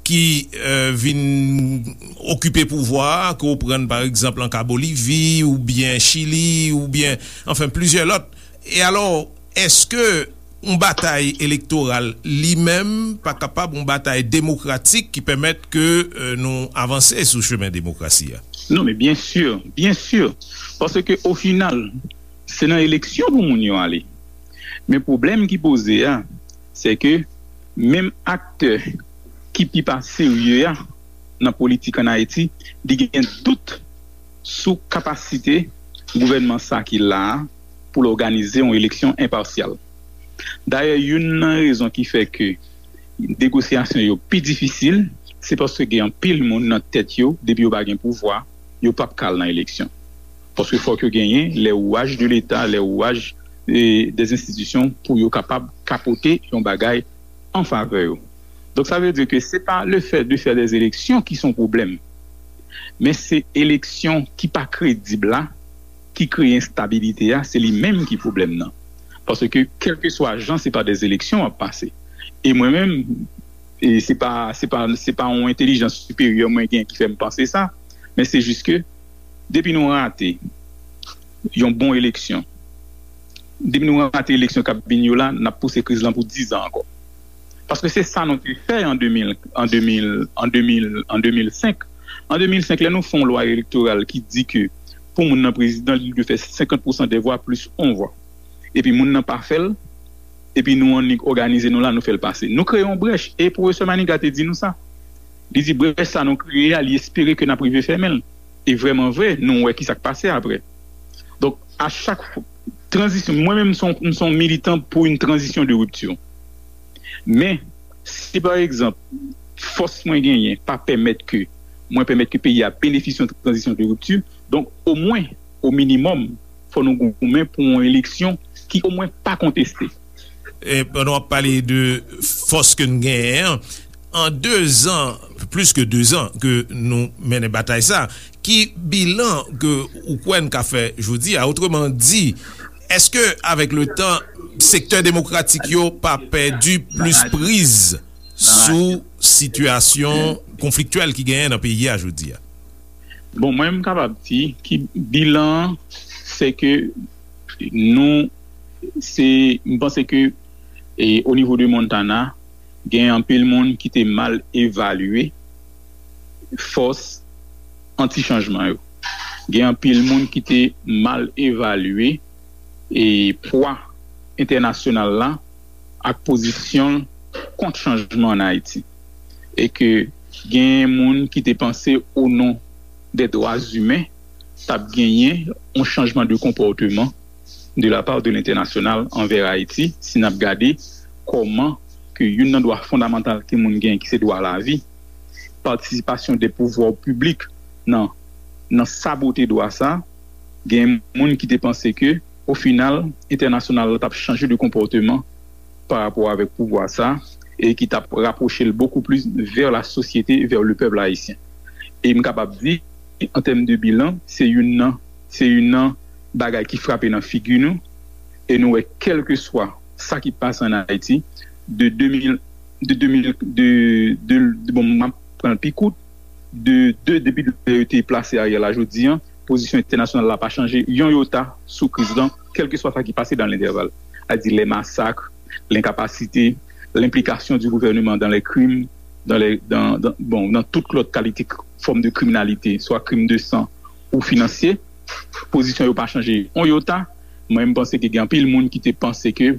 ki euh, vin okipe pouvwa a, ke w pran pa egzanp an ka Bolivi, oubyen Chili, oubyen, anfen, plizyè lòt. E alò, èske yon batay elektoral li menm pa kapab yon batay demokratik ki pèmèt ke euh, nou avanse sou chemen demokrasi a? Non, men byen si, byen si. Paske o final, se nan eleksyon pou moun yo ale. Men pwoblèm ki poze a, se ke menm aktè ki pi pa serye a nan politik ann Ayiti, li gen dout sou kapasite gouvènman sa ki la a pou l òganize yon eleksyon enpasyal. Dayè, youn nan rezon ki fè ke negosyasyon yo pi difisil, se paske gen anpil moun nan tèt yo, depi yo pa gen pouvwa, yo p ap ka al nan eleksyon. Paske fòk yo genyen les rouages de l'État, les rouages eh, des institutions pou yo kapab kapote yon bagay an favè yo. Donk, sa vle di ke se pa le fait de faire des élections ki se yon pwoblèm, men se eleksyon ki pa kredib la ki kreye enstabilite a, se li menm ki pwoblèm nan. Paske, kèlkeswa jan, se pa des élections w ap pase. E mwen menm, e se pa, se pa, se pa yon entèlijans siperyè mwen gen ki fè m panse sa, men se jis ke depi nou rate yon bon eleksyon, depi nou rate eleksyon k ap vin yo la, n ap pouse kriz lan pou diz an ankò. Paske se sa nou te fè an de mil, an de mil, an de mil, an de mil senk. An de mil senk, lè nou fè yon lwa elektoral ki di ke pou moun nan prezidan, li dwe fè senkant pousan de vwa plis yon vwa. Epi moun nan pa fè l, epi nou annik òganize nou la, nou fè l pase. Nou kreye yon brèch, e pwofesè Maniga te di nou sa. Li di brèch sa nou kreye a, li espere ke n ap rive fèmen l. E vrèman vre, nou wè ki sa k pase apre. Donk, a chak fwa, tranzisyon, mwen menm, m se yon, m se yon militan pou yon tranzisyon de ripti. Men, si pa egzanp, fòs mwen genyen pa pèmèt ke, mwen pèmèt ke peyi a benefisye yon tranzisyon de ripti, donk, omwen, o minimòm, fò nou goumen pou yon eleksyon ki omwen pa konteste. E pandan w ap pale de fòs ke n genyen an, an dezan, plis ke dezan ke nou mennen batay sa, ki bilan ke ou kwè n ka fè jodi a? Otreman di, èske avèk le tan, sektè demokratik yo pa pèdi plis priz sou sitiyasyon konfliktyèl ki genyen nan peyi a jodi a? Bon, mwen, m kapab di ki bilan an, se ke nou, se, m panse ke e, o nivo de Montana, gen anpil moun ki te mal evalye fòs anti-chanjman yo. Gen anpil moun ki te mal evalye e pwa entènasyonal la ak pozisyon l kont chanjman ann Ayiti. E ke genyen moun ki te panse o non dè dwa imen t ap genyen yon chanjman de konpòteman de la part de lentènasyonal anvè Ayiti, si n ap gade kòman ke youn nan dwa fondamantal ke moun gen, ki se dwa lavi, patisipasyon de pouvwa piblik nan, nan sabote dwa sa, gen moun ki te panse ke, o final, entènasyonal la t ap chanje de konpòteman pa rapò avèk pouvwa sa, e ki t ap rapwoche l bokou plis vè la sosyete, vè le pèp ayisyen. E m kapab di, an tèm de bilan, se youn nan, se youn nan bagay ki frape nan figi nou, e nou wè kèlkeswa sa ki pase ann Ayiti, de de mil, de de mil, de, de, de, bon, m ap pran l pi kout, de, de, depi lè yo te plase Ariel la jodi an, pozisyon entènasyonal la pa chanje yon yota sou kriz lan, kèlkeswa sa ki pase dan lentèval. Sa di lè masak, lenkapasite, lenplikasyon di gouvèneman dan lè krim, dan lè, dan, dan, bon, dan tout lòt kalite k-, fòm de kriminalite, swa krim de san ou finansye, pozisyon yo pa chanje yon yota. Mwen, m panse ke gen anpil moun ki te panse ke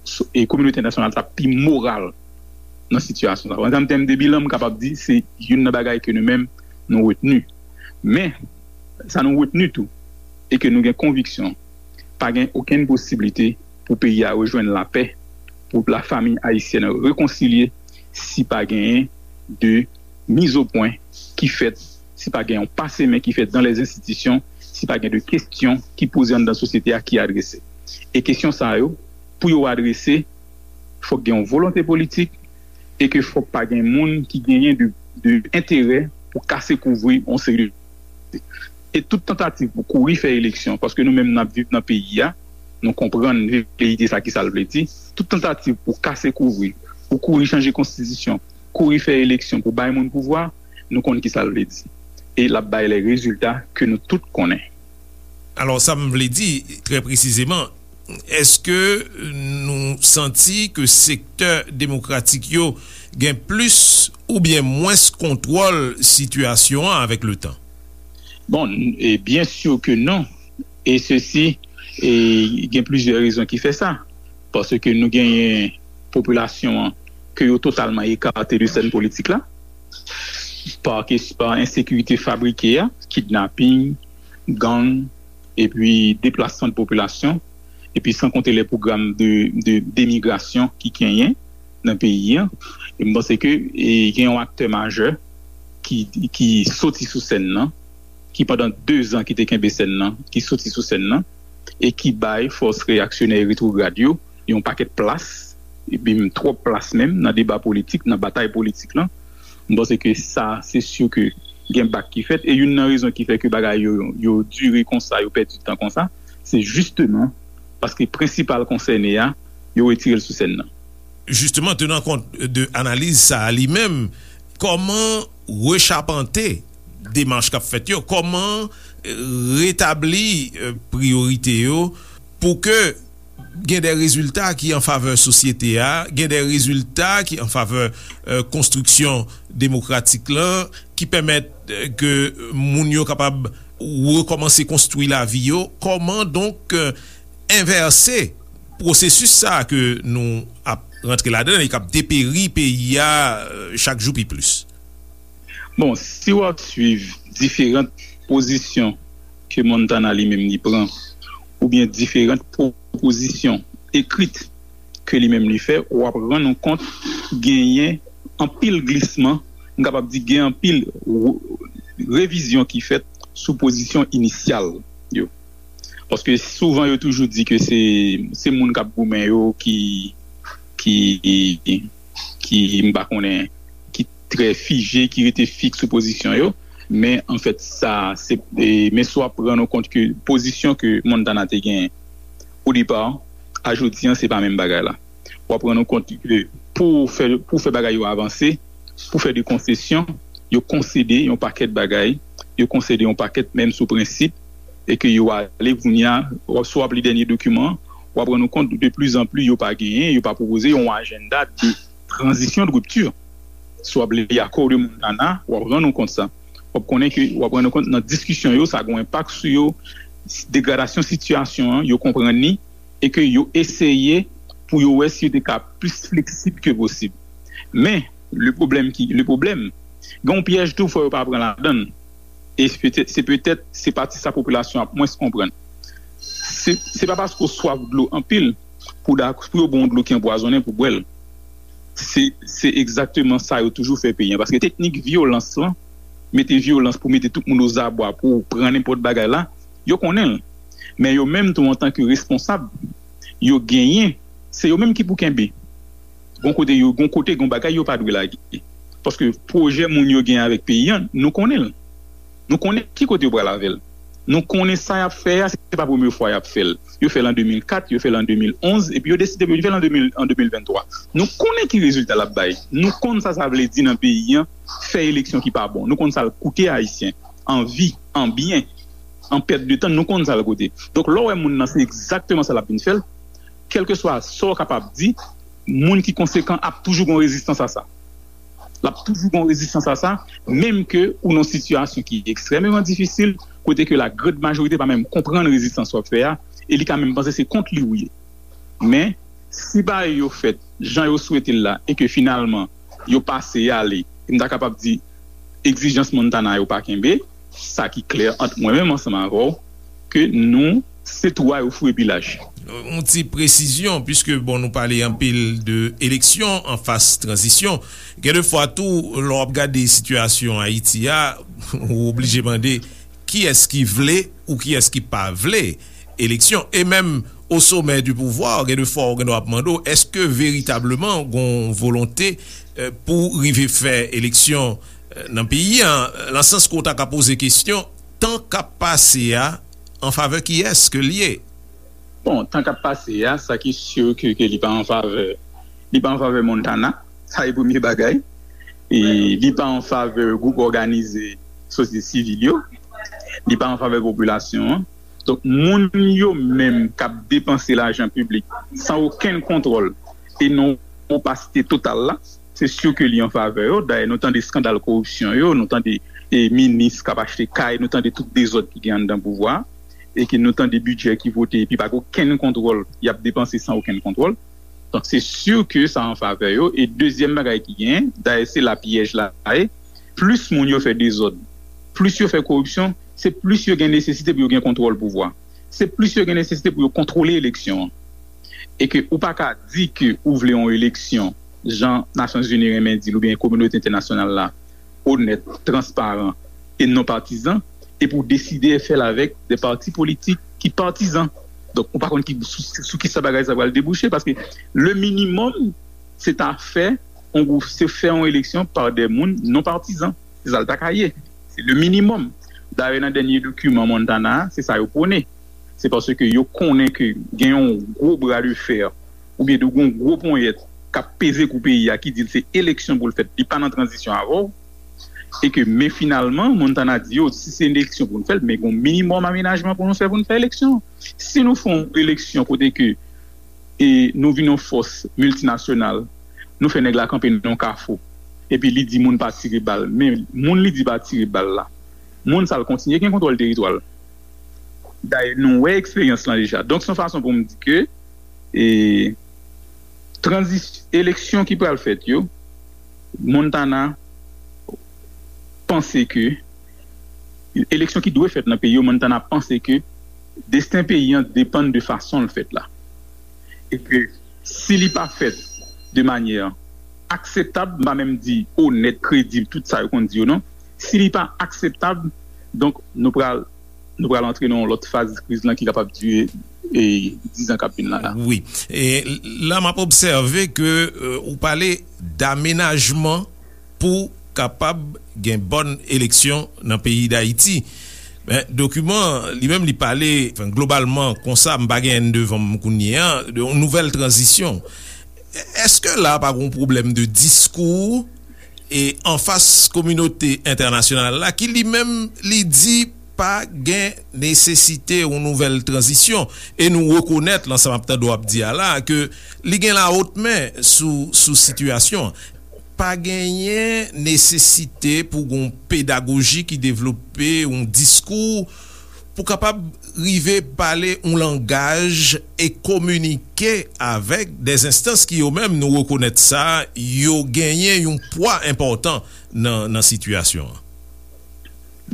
s-, e kominote entènasyonal t ap pi moral nan sitiyasyon sa. An tèm, tèm de bilan, m kapab di se youn nan bagay ke nou menm nou retni. Men, sa nou retni tou, e ke nou gen konviksyon, pa gen okenn posiblite pou peyi a rejwenn lapè, pou lafanmi ayisyèn rekonsilye, si pa genyen de mizopwen ki fèt, si pa gen yon pase men ki fèt dan lèz enstitisyon, si pa gen de kesyon ki poze anndan sosyete a ki adrese. E kesyon sa yo, pou yo adrese, fòk gen yon volonte politik, e ke fòk pa gen moun ki genyen de, de enterè pou kase kouvri yon seri de. E tout tantativ pou kouri fè eleksyon, paske nou menm n ap viv nan peyi a, nou konprann veleyite sa ki sa l vle di, tout tantativ pou kase kouvri, pou kouri chanje konstitisyon, kouri fè eleksyon pou bay moun pouvwa, nou konn ki sa l vle di. E l ap bay lè rezilta ke nou tout konnen. Alò, sa m vle di, trè presizeman, èske nou santi ke sektè demokratik yo gen plis oubyen mwens kontwòl sitiyasyon an avèk letan? Bon, e byen si ke non. E sesi, e gen plizyè rezon ki fè sa. Paske nou genyen popilasyon an ke yo totalman ekate de sèn politik la, pa kes-, pa ensekirite fabrike a, kidnaping, gang, epi deplasman de popilasyon, epi san konte lè pwogram de, de, demigrasyon ki genyen nan peyi a. E m panse ke, e, gen yon aktè majè ki, ki soti sou sèn nan, ki pandan de zan ki te kenbe sèn nan, ki soti sou sèn nan, e ki bay fòs reyaksyonè e retwograd yo yon pakèt plas, epi menm twòp plas menm nan deba politik, nan batay politik lan. M panse ke sa, se si ke gen bak ki fèt, e youn nan rezon ki fè ke bagay yo, yo dire konsa, yo pèdi tan konsa, se jisteman paske prensipal konsène a, yo retire l sou sèn nan. Jisteman, tenan kont de analiz sa a li menm, kòman rechapante demach k ap fèt yo? Kòman, eh, retabli, eh, priyorite yo pou ke gen de rezilta ki an favè sosyete a, gen de rezilta ki an favè, eh, konstriksyon demokratik lan, ki pèmèt, eh, ke moun yo kapab rekòmanse konstwi lavi yo? Kòman donk, eh, envèse pwosesis sa a ke nou ap rantre ladan l e k ap deperi peyi a, eh, chak jou pi plis? Bon, si w ap swiv diferan pozisyon ke Montana li menm li pran, oubyen diferan pwopozisyon ekrit ke li menm li fè, w ap rann ou kont genyen anpil glisman, m kapab di gen anpil re-, revizyon ki fèt sou pozisyon inisyal yo. Paske souvan yo toujou di ke se, se moun k ap goumen yo ki, ki, ki, m pa konnen, ki trè fije, ki rete fiks sou pozisyon yo. Men, anfèt, sa, se, e, men si w ap rann ou kont ke pozisyon ke Montana te genyen o depa, a jodi an, se pa menm bagay la. W ap rann ou kont ke pou fè, pou fè bagay yo avanse, pou fè de konsesyon, yo konsede yon pakèt bagay, yo konsede yon pakèt menm sou prensip, e ke yo ale kounye a, w ap, si w ap li dènye dokiman, w ap rann ou kont de pli zan pli yo pa genyen, yo pa pwopoze yon ajanda de tranzisyon, de ripti. Si w ap li akò de Montana, w ap rann ou kont sa. W ap konnen ke, w ap rann ou kont nan diskisyon yo, sa gen yon enpak sou yo, degradasyon sitiyasyon an, yo konprann li, e ke yo eseye pou yo wè si yo te ka plis fleksib ke posib. Men, le pwoblèm ki, le pwoblèm, gen yon pyèj tou, fò yo pa pran ladan l. E se petèt, se petèt, se pati sa popilasyon ap mwens konprann. Se, se pa paske w swaf dlo anpil pou, pou yo ba w dlo ki anpwazonnen pou bwè l. Se, se egzakteman sa yo toujou fè peyi an. Paske teknik vyolans lan, mete vyolans pou mete tout moun ozabwa pou pran nenpòt bagay la, yo konnen l. Men yo menm tou, antanke responsab, yo genyen, se yo menm ki pou kenbe. Gon kote yo, gon kote, gon bagay yo pa dwe lage. Paske pwojè moun yo gen avèk peyi an, nou konnen l. Nou konnen ki kote yo pral avè l. Nou konnen sa y ap fè a, se pa premye fwa y ap fè l. Yo fè l an de mil kat, yo fè l an de mil onz, epi yo deside pou yo fè l an de mil, an de mil venntwa. Nou konnen ki rezilta l ap bay. Nou konn sa sa vle di nan peyi an, fè eleksyon ki pa bon. Nou konn sa l koute Ayisyen. An vi, an byen, an pèt de tan, nou konn sa l koute. Donk, lè w wè moun nan, se egzakteman sa l ap vin fè l. Kèlkeswa sa w kapab di, moun ki konsekan ap toujou gon rezistans a sa. L ap toujou gon rezistans a sa, menm ke ou nan sitiyasyon ki ekstrèmeman difisil, kote ke la grande majorité pa menm konprann rezistans w ap fè a, e li ka menm panse se kont li ou ye. Men, si bagay yo fèt jan yo swete l la, e ke finalman, yo pase ale, e m ta kapab di, egzijans Montana yo pa kenbe, sa ki klè ant mwen menm ansanm avè w, ke nou, se twou a yo foure pi laj. Yon ti presizyon, piske, bon, nou pale anpil de eleksyon an faz tranzisyon. Gen de fwa tou, lè w ap gade sitiyasyon Ayiti a, ou oblije mande kiyès ki vle ou kiyès ki pa vle eleksyon. E menm o somè di pouvwa, gen de fwa ou gen dwa ap mande w, èske veritableman gon volonte, eh, pou rive fè eleksyon, eh, nan peyi an? Nan sans ke w ta ka poze kesyon, tan k ap pase a, an favè kiyès ke l ye? Bon, tan k ap pase a, sa ki si ke, ke li pa an favè, li pa an favè Montana, sa e premye bagay. E li pa an favè gwoup òganize sosyete sivil yo, li pa an favè popilasyon an. Donk, moun yo menm k ap depanse lajan piblik san okenn kontwòl e nan opasite total la, se si ke li an favè yo. Dayè, nou tande eskandal koripsyon yo, nou tande, e, minis k ap achte kay, nou tande tout dezòd ki gen anndan pouvwa a, e ke nou tande bidjè ki vote epi pa gen okenn kontwòl, y ap depanse san okenn kontwòl. Donk, se si ke sa an favè yo. E dezyèm bagay ki genyen, dayè, se la pyèj la ye, plis moun yo fè dezòd, plis yo fè koripsyon, se plis yo gen nesesite pou yo gen kontwòl pouvwa. Se plis yo gen nesesite pou yo kontwole eleksyon an. E ke ou pa ka di ke ou vle yon eleksyon, jan Nasyonzini renmen di l, oubyen kominote entènasyonal la, onèt, transparan e non patizan, epi w deside fè l avèk de pati politik ki patizan. Donk, ou pa konn ki, sou, sou ki sa bagay sa pral debouche, paske le minimòm, se ta fè yon gwoup, se fè yon eleksyon pa de moun non patizan. Se sa l ta ka ye. Se le minimòm. Dayè, nan dènye dokiman Montana a, se sa yo pwone. Se paske yo konnen ke gen yon gwo bra de fè, oubyen de yon gwo ponyèt k ap peze kou peyi a, ki di l se eleksyon pou l fèt, li pa nan tranzisyon avè w. E ke, men finalman, Montana di yo, si se eleksyon pou n fè l, men gen yon minimòm amenajman pou nou fè pou n fè eleksyon. Si nou fè yon eleksyon kote ke, e, nou vin yon fòs miltinasyonal, nou fè nèg la kanpe nan yon kafou, epi li di moun pa tire bal, men moun li di pa tire bal la, moun sa l kontinye gen kontwòl teritwa l. Dayè, nou wè eksperyans lan deja. Donk, se yon fason pou m di ke, e, tranzis-, eleksyon ki pral fèt yo, Montana panse ke, eleksyon ki dwe fèt nan peyi yo, Montana panse ke desten peyi an depann de fason l fèt la. E ke si li pa fèt de manyè akseptab, m pa menm di onèt, kredib, tout sa yo konn di yo non, si li pa akseptab, donk, nou pral, nou pral antre nan yon lòt faz kriz lan ki kapab dire, e, diz an k ap vin la la. Wi. E la, m ap obsève ke, euh, ou pale damenajman pou kapab gen bòn eleksyon nan peyi Dayiti. Men, dokiman, li menm, li pale, anfen, globalman, konsa, m pa gen N devan m kounye a, de yon nouvèl tranzisyon. Èske la pa gen yon pwoblèm de diskou e anfas kominote entènasyonal la ki li menm li di pa gen nesesite yon nouvèl tranzisyon? E nou rekonèt, lan sa m ap tande w ap di a la, ke li gen lawotmen sou, sou sitiyasyon an. Pa genyen nesesite pou gen yon pedagoji ki devlope, yon diskou pou kapab rive pale yon langaj e kominike avèk dèzenstans ki yo menm, nou rekonèt sa, yo genyen yon pwa enpòtan nan, nan sitiyasyon an.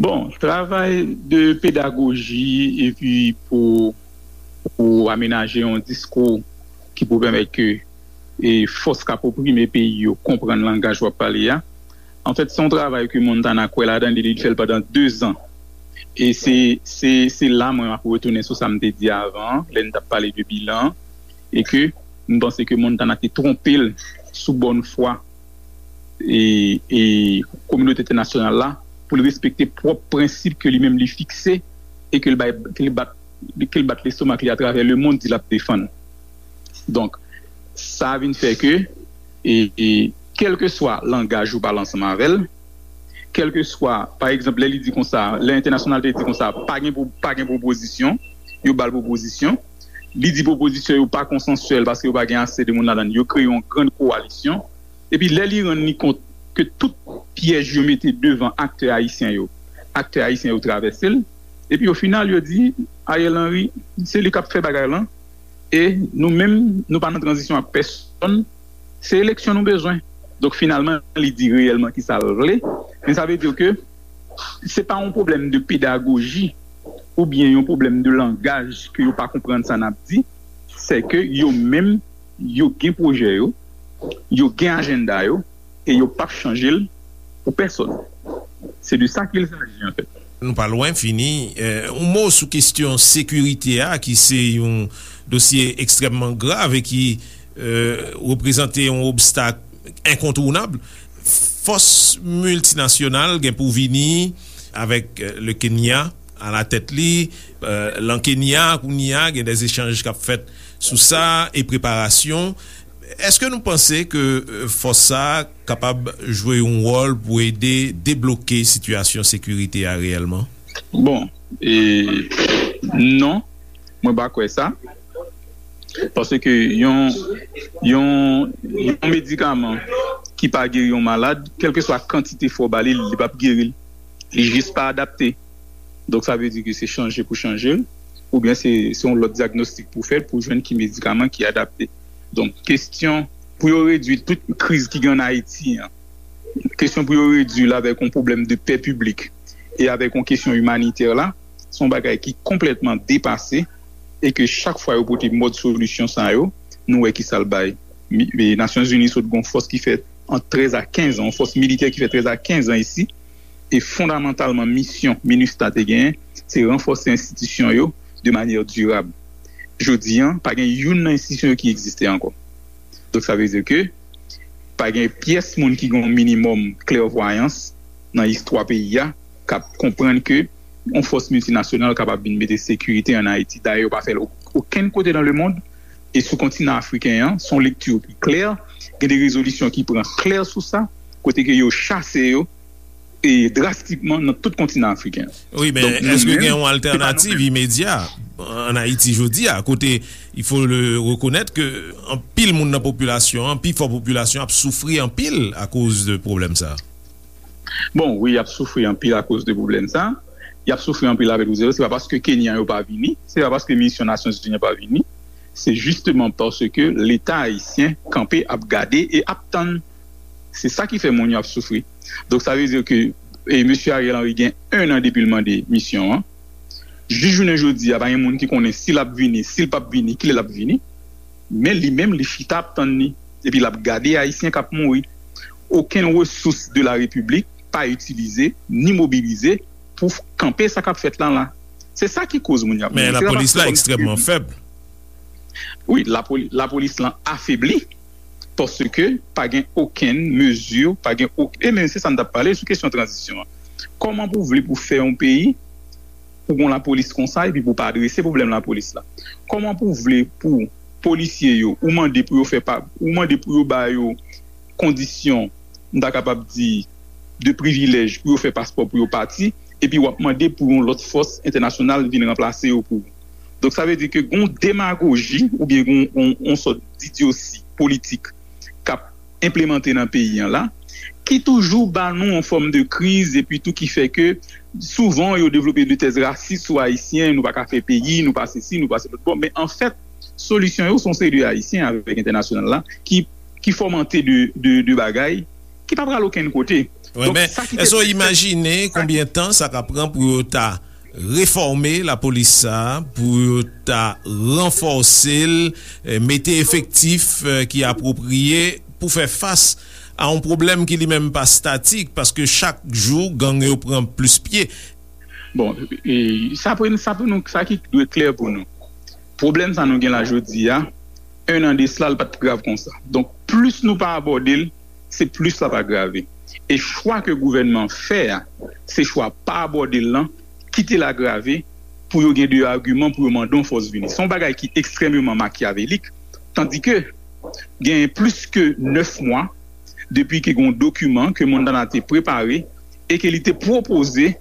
Bon, travay de pedagoji epi pou, pou amenaje yon diskou ki pou pèmèt ke e fòs k ap oprime peyi yo konprann langaj w ap pale a. Anfèt, se yon travay ke Montana kwè ladan li, li fè l pandan dezan. E se, se, se la mwen ap retounen sou sa m te di avan an, lè n t ap pale de bilan an, e ke m panse ke Montana te twonpe l sou bòn fwa e, e kominote entènasyonal la pou l respekte pwòp prensip ke li menm li fikse e ke l bay, ke l bat, ke l bat lestomak li atravè lemonn di l ap defann. Donk, sa vin fè ke, e, e, kèlkeswa langaj ou pale ansanm avè l, kèlkeswa, pa egzanp, lè li di konsa, lè entènasyonal te di konsa, pa gen, pa gen pwopozisyon, yo ba l pwopozisyon. Li di pwopozisyon yo pa konsansyèl paske yo pa gen ase de moun ladan l. Yo kreye yon grann kowalisyon. Epi lè li rann li kont ke tout pyèj yo mete devan aktè ayisyen yo, aktè ayisyen yo travèse l. Epi o final, yo di, Ariel Henry, se li k ap fè bagay lan. E nou menm, nou pa nan tranzisyon ak pèsonn. Se eleksyon nou bezwen. Donk, finalman, li di reyèlman ki sa l vle. Men sa vle di ke se pa yon pwoblèm de pedagoji oubyen yon pwoblèm de langaj ke yo pa konprann sa n ap di. Se ke yo menm, yo gen pwojè yo, yo gen ajanda yo, e yo p ap chanje l pou pèsonn. Se de sa qu'il s'agit, en fait. Nou pa lwen fini. Eh, yon mo sou kesyon sekirite a, ki se yon dosye ekstrèmman grav e ki eh, reprezante yon obstak enkontounab. Fòs miltinasyonal gen pou vini avèk eh, le Kenya alatèt li. Eh, lan Kenya, kounye a, gen de echanj k ap fèt sou sa e preparasyon. Èske nou panse ke eh, fòs sa a kapab jwe yon wòl pou ede debloke sitiyasyon sekirite a reyèlman? Bon, e, non, mwen pa kwè sa. Paske yon, yon, yon medikaman ki pa geri yon malad, kèlkeswa kantite fò w ba li, li p ap geri l. Li jis pa adapte. Donk, sa vle di ke se chanje pou chanje l, oubyen se, se yon lòt dyagnostik pou fèt pou jwenn ki medikaman ki adapte. Donk, kesyon pou yo redwi tout kriz ki gen ann Ayiti an, kesyon pou yo redwi l avèk yon pwoblèm de pè piblik e avèk yon kesyon imanitè la, se yon bagay ki konplètman depase e ke chak fwa yo pote mòd solisyon sa yo, nou wè ki sa l bay. Nasyonzini sot gen yon fòs ki fè ant trèz a kenz an, yon fòs militè ki fè trèz a kenz an isi, e fondamantalman misyon minustah te genyen, se ranfòse enstitisyon yo de manyè dirab. Jodi an, pa gen youn nan enstitisyon yo ki egziste ankò. Donk, sa vle di ke pa gen pyès moun ki gen yon minimòm klèvwayans nan istwa peyi a k ap konprann ke yon fòs miltinasyonal kapab vin mete sekirite ann Ayiti. Dayè, yo pa fè l okenn kote nan lemonn. E sou kontinan afriken an, se yon lekti ki klè. Gen de rezolisyon ki pran klè sou sa, kote ke yo chase yo e drastikman nan tout kontinan afriken an. Wi, men èske gen yon altènativ imedya ann Ayiti jodi a, kote il faut le reconnaître ke anpil moun nan popilasyon an, pi fò popilasyon ap soufri anpil akoz de pwoblèm sa a? Bon, wi, y ap soufri anpil akoz de pwoblèm sa a. Y ap soufri anpil avèk Luzolo. Se pa paske Kenyan yo pa vini, se pa paske misyon Nasyonzini an pa vini. Se jisteman paske Leta ayisyen kanpe ap gade e ap tann. Se sa ki fè moun yo ap soufri. Donk, sa vle di ke e, mesye Ariel Henry gen en an depi l mande misyon an. Jis jounen jodi a, pa gen moun ki konnen si l ap vini, si l p ap vini, kilè l ap vini. Men li menm, li chita ap tann li. Epi l ap gade Ayisyen k ap mouri. Okenn resous de la Repiblik pa itilize, ni mobilize pou kanpe sa k ap fèt la la. Se sa ki koz moun y ap mouri. Men lapolis la ekstrèmman fèb. Wi, lapolis lan afebli. Paske pa gen okenn mezi, pa gen okenn. E men se sa n t ap pale sou kesyon tranzisyon an. Kòman pou w vle pou w fè yon peyi pou w gen yon lapolis konsa epi pou w pa adrese pwoblèm lapolis la? Kòman pou w vle pou polisye yo, ou mande pou yo fè pa, ou mande pou yo ba yo kondisyon, m ta kapab di, de privilèj pou yo fè paspò pou yo pati, epi w ap mande pou yon lòt fòs entènasyonal vin ranplase yo pou ou? Donk, sa vle di ke gen yon demagoji oubyen gen yon, yon, yon sòt didyosi politik k ap enplemante nan peyi an la, ki toujou ba nou yon fòm de kriz, epi tou ki fè ke souvan yo devlope de tèz rasis sou Ayisyen, nou pa ka fè peyi, nou pa sesi, nou pa se lòt. Bon, men anfèt, solisyon yo se yon seri de Ayisyen avèk entènasyonal la ki, ki fòmante de, de, de bagay ki pa pral okenn kote. Wi, men èske w imajine konbyen tan sa ka pran pou yo ta refòme lapolis sa a, pou yo ta ranfòse l, eh, mete efektif, eh, ki apwopriye pou fè fas a yon pwoblèm ki li menm pa statik, paske chak jou gang yo pran plis pye? Bon, e, sa pou, sa pou nou, sa ki dwe klè pou nou. Pwoblèm sa nou gen la jodi a, en an de sla, l pa t grav konsa. Donk, plis nou pa abòde l, se plis l ap agrave. E chwa ke gouvènman an fè a, se chwa pa abòde l lan, kite l agrave, pou yo gen de agiman pou yo mande yon fòs vini. Se yon bagay ki ekstrèmeman makyavelik, tandike genyen plis ke nèf mwa depi ke gen yon dokiman ke Montana te prepare e ke li te pwopoze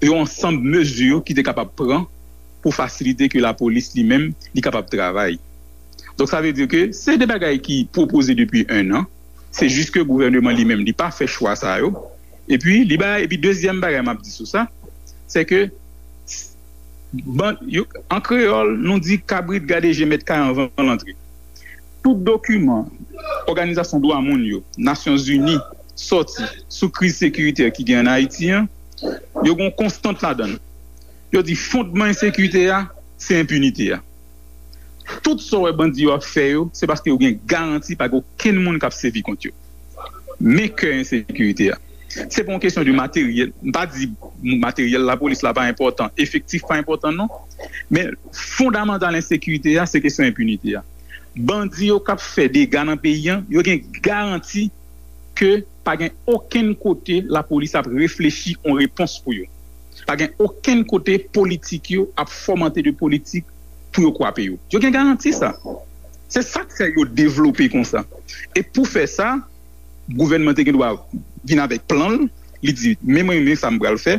yon ansanm mezi ki te kapab pran pou fasilite ke lapolis li menm li kapab travay. Donk, sa vle di ke se de bagay ki pwopoze depi en an. Se jis ke gouvèneman li menm, li pa fè chwa sa yo. Epi, li bay, epi dezyèm bagay m ap di sou sa, se ke, ban, yo, an kreyòl, nou di kabrit gade je mèt kay anvan l antre. Tout dokiman òganizasyon dwa moun yo, Nasyonzini, sòti sou kriz sekiritè ki gen ann Ayiti an, yo gen yon konstant ladan l. Yo di fondman ensekirite a, se enpinite a. Tout sa w wè bandi yo ap fè yo, se paske yo gen garanti pa gen okenn moun k ap sèvi kont yo. Men kè ensekirite a. Se pa yon kesyon de materyèl. M pa di materyèl lapolis la pa enpòtan, efektif pa enpòtan non. Men fondamantal ensekirite a, se kesyon enpinite a. Bandi yo k ap fè dega nan peyi an, yo gen garanti ke pa gen okenn kote lapolis ap reflechi yon repons pou yo. Pa gen okenn kote politik yo ap fòmante de politik pou yo kwape yo. Yo gen garanti sa. Se sa k fè yo devlope konsa. E pou fè sa, gouvènman te gen dwa vin avèk plan l, li di, men mwen, men sa m pral fè,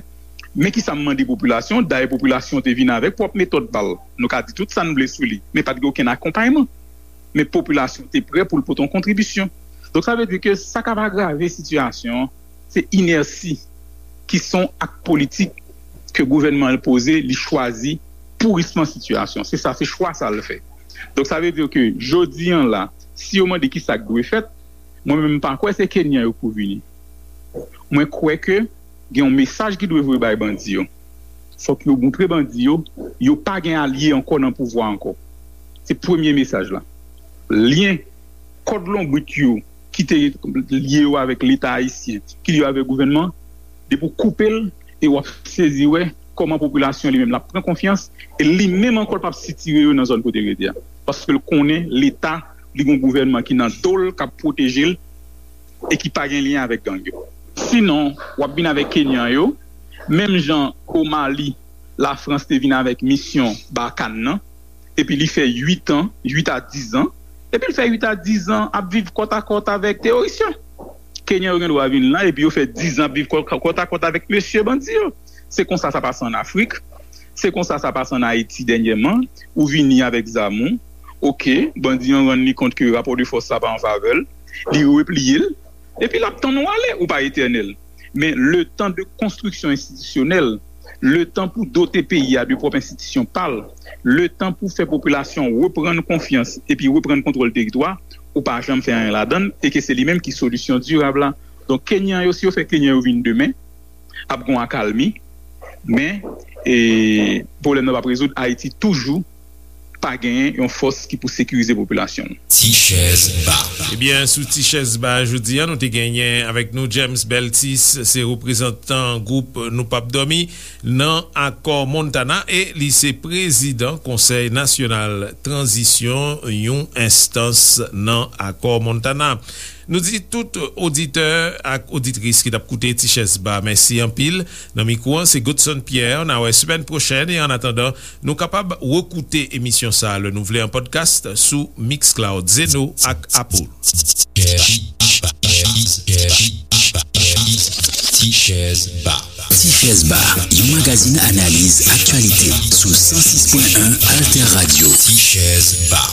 men ki sa m mande popilasyon, dayè popilasyon te vin avèk pwòp metòd pa l. Nou ka di tout sa n vle sou li, men pa t gen okenn akonpayman. Men popilasyon te prè pou l pote yon kontribisyon. Donk, sa vle di ke sa k ap agrave sitiyasyon an, se inèsi ki se yon ak politik ke gouvènman an poze, li chwazi pourisman sitiyasyon. Se sa, se chwa sa l fè. Donk, sa vle di ke jodi an la, si yo mande ki sa k dwe fèt, mwen menm m pa kwè se Kenyan yo k pou vini. Mwen kwè ke gen yon mesaj ki dwe voye bay bandi yo. Fòk yo montre bandi yo, yo pa gen alye ankò nan pouvwa ankò. Se premye mesaj la. Lyen kòd lonbrit yo ki te lye yo avèk Leta ayisyen, ki lye yo avèk gouvènman, depi w koupe l, e w ap sezi wè kòman popilasyon li menm l ap pran konfyans, e li menm ankò l p ap sitire yo nan zòn kote l rete a. Paske l konnen Leta, li gen yon gouvènman ki nan do l, k ap pwoteje l, e ki pa gen lyen avèk gang yo. Sinon, w ap vin avèk Kenyan yo, menm jan o Mali, Lafrans te vin avèk misyon Barkhane nan, epi li fè uit an, uit a diz an, epi l fè uit a diz an ap viv kòtakòt avèk teworis yo. Kenyan yo gen dwa vin la, epi yo fè diz an ap viv kò-, kòtakòt avèk mesye bandi yo. Se konsa sa pase ann Afrik, se konsa sa pase ann Ayiti dènyèman, ou vini avèk zam ou, oke, bandi an rann li kont ke rapò de fòs la pa an favè l, li repliye l, epi l ap tann ou ale, ou pa etènèl. Men letan de konstriksyon enstitisyonèl, letan pou dote peyi a de pwòp enstitisyon pa l, letan pou fè popilasyon reprann konfyans epi reprann kontwòl teritwa, ou pa janm fè anyen ladan l, e ke se li menm ki solisyon dirab la. Donk, Kenyan yo, si yo fè Kenyan yo vin demen, ap gen yon akalmi, men, e, pwoblèm nan p ap rezoud. Ayiti toujou pa genyen yon fòs ki pou sekirize popilasyon l. Ti chèz ba. Ebyen, sou Ti chèz ba jodi a, nou te genyen avèk nou James Beltis, se reprezantan gwoup Nou p ap dòmi nan Akò Montana e li se prezidan Konsèy Nasyonal Tranzisyon, yon enstans nan Akò Montana. Nou di tout oditè ak oditris ki t ap koute Ti Chèz Ba, mèsi anpil. Nan mikwo an, se Godson Pierre. N a wè semèn pwochèn. E annatandan, nou kapab rekoute emisyon sa a lè nou vle an podcast sou Mixcloud, Zeno ak Apple. Ti Chèz Ba. Ti Chèz Ba, yon magazin analiz aktyalite sou san sis pwen en Alter Radio. Ti Chèz Ba.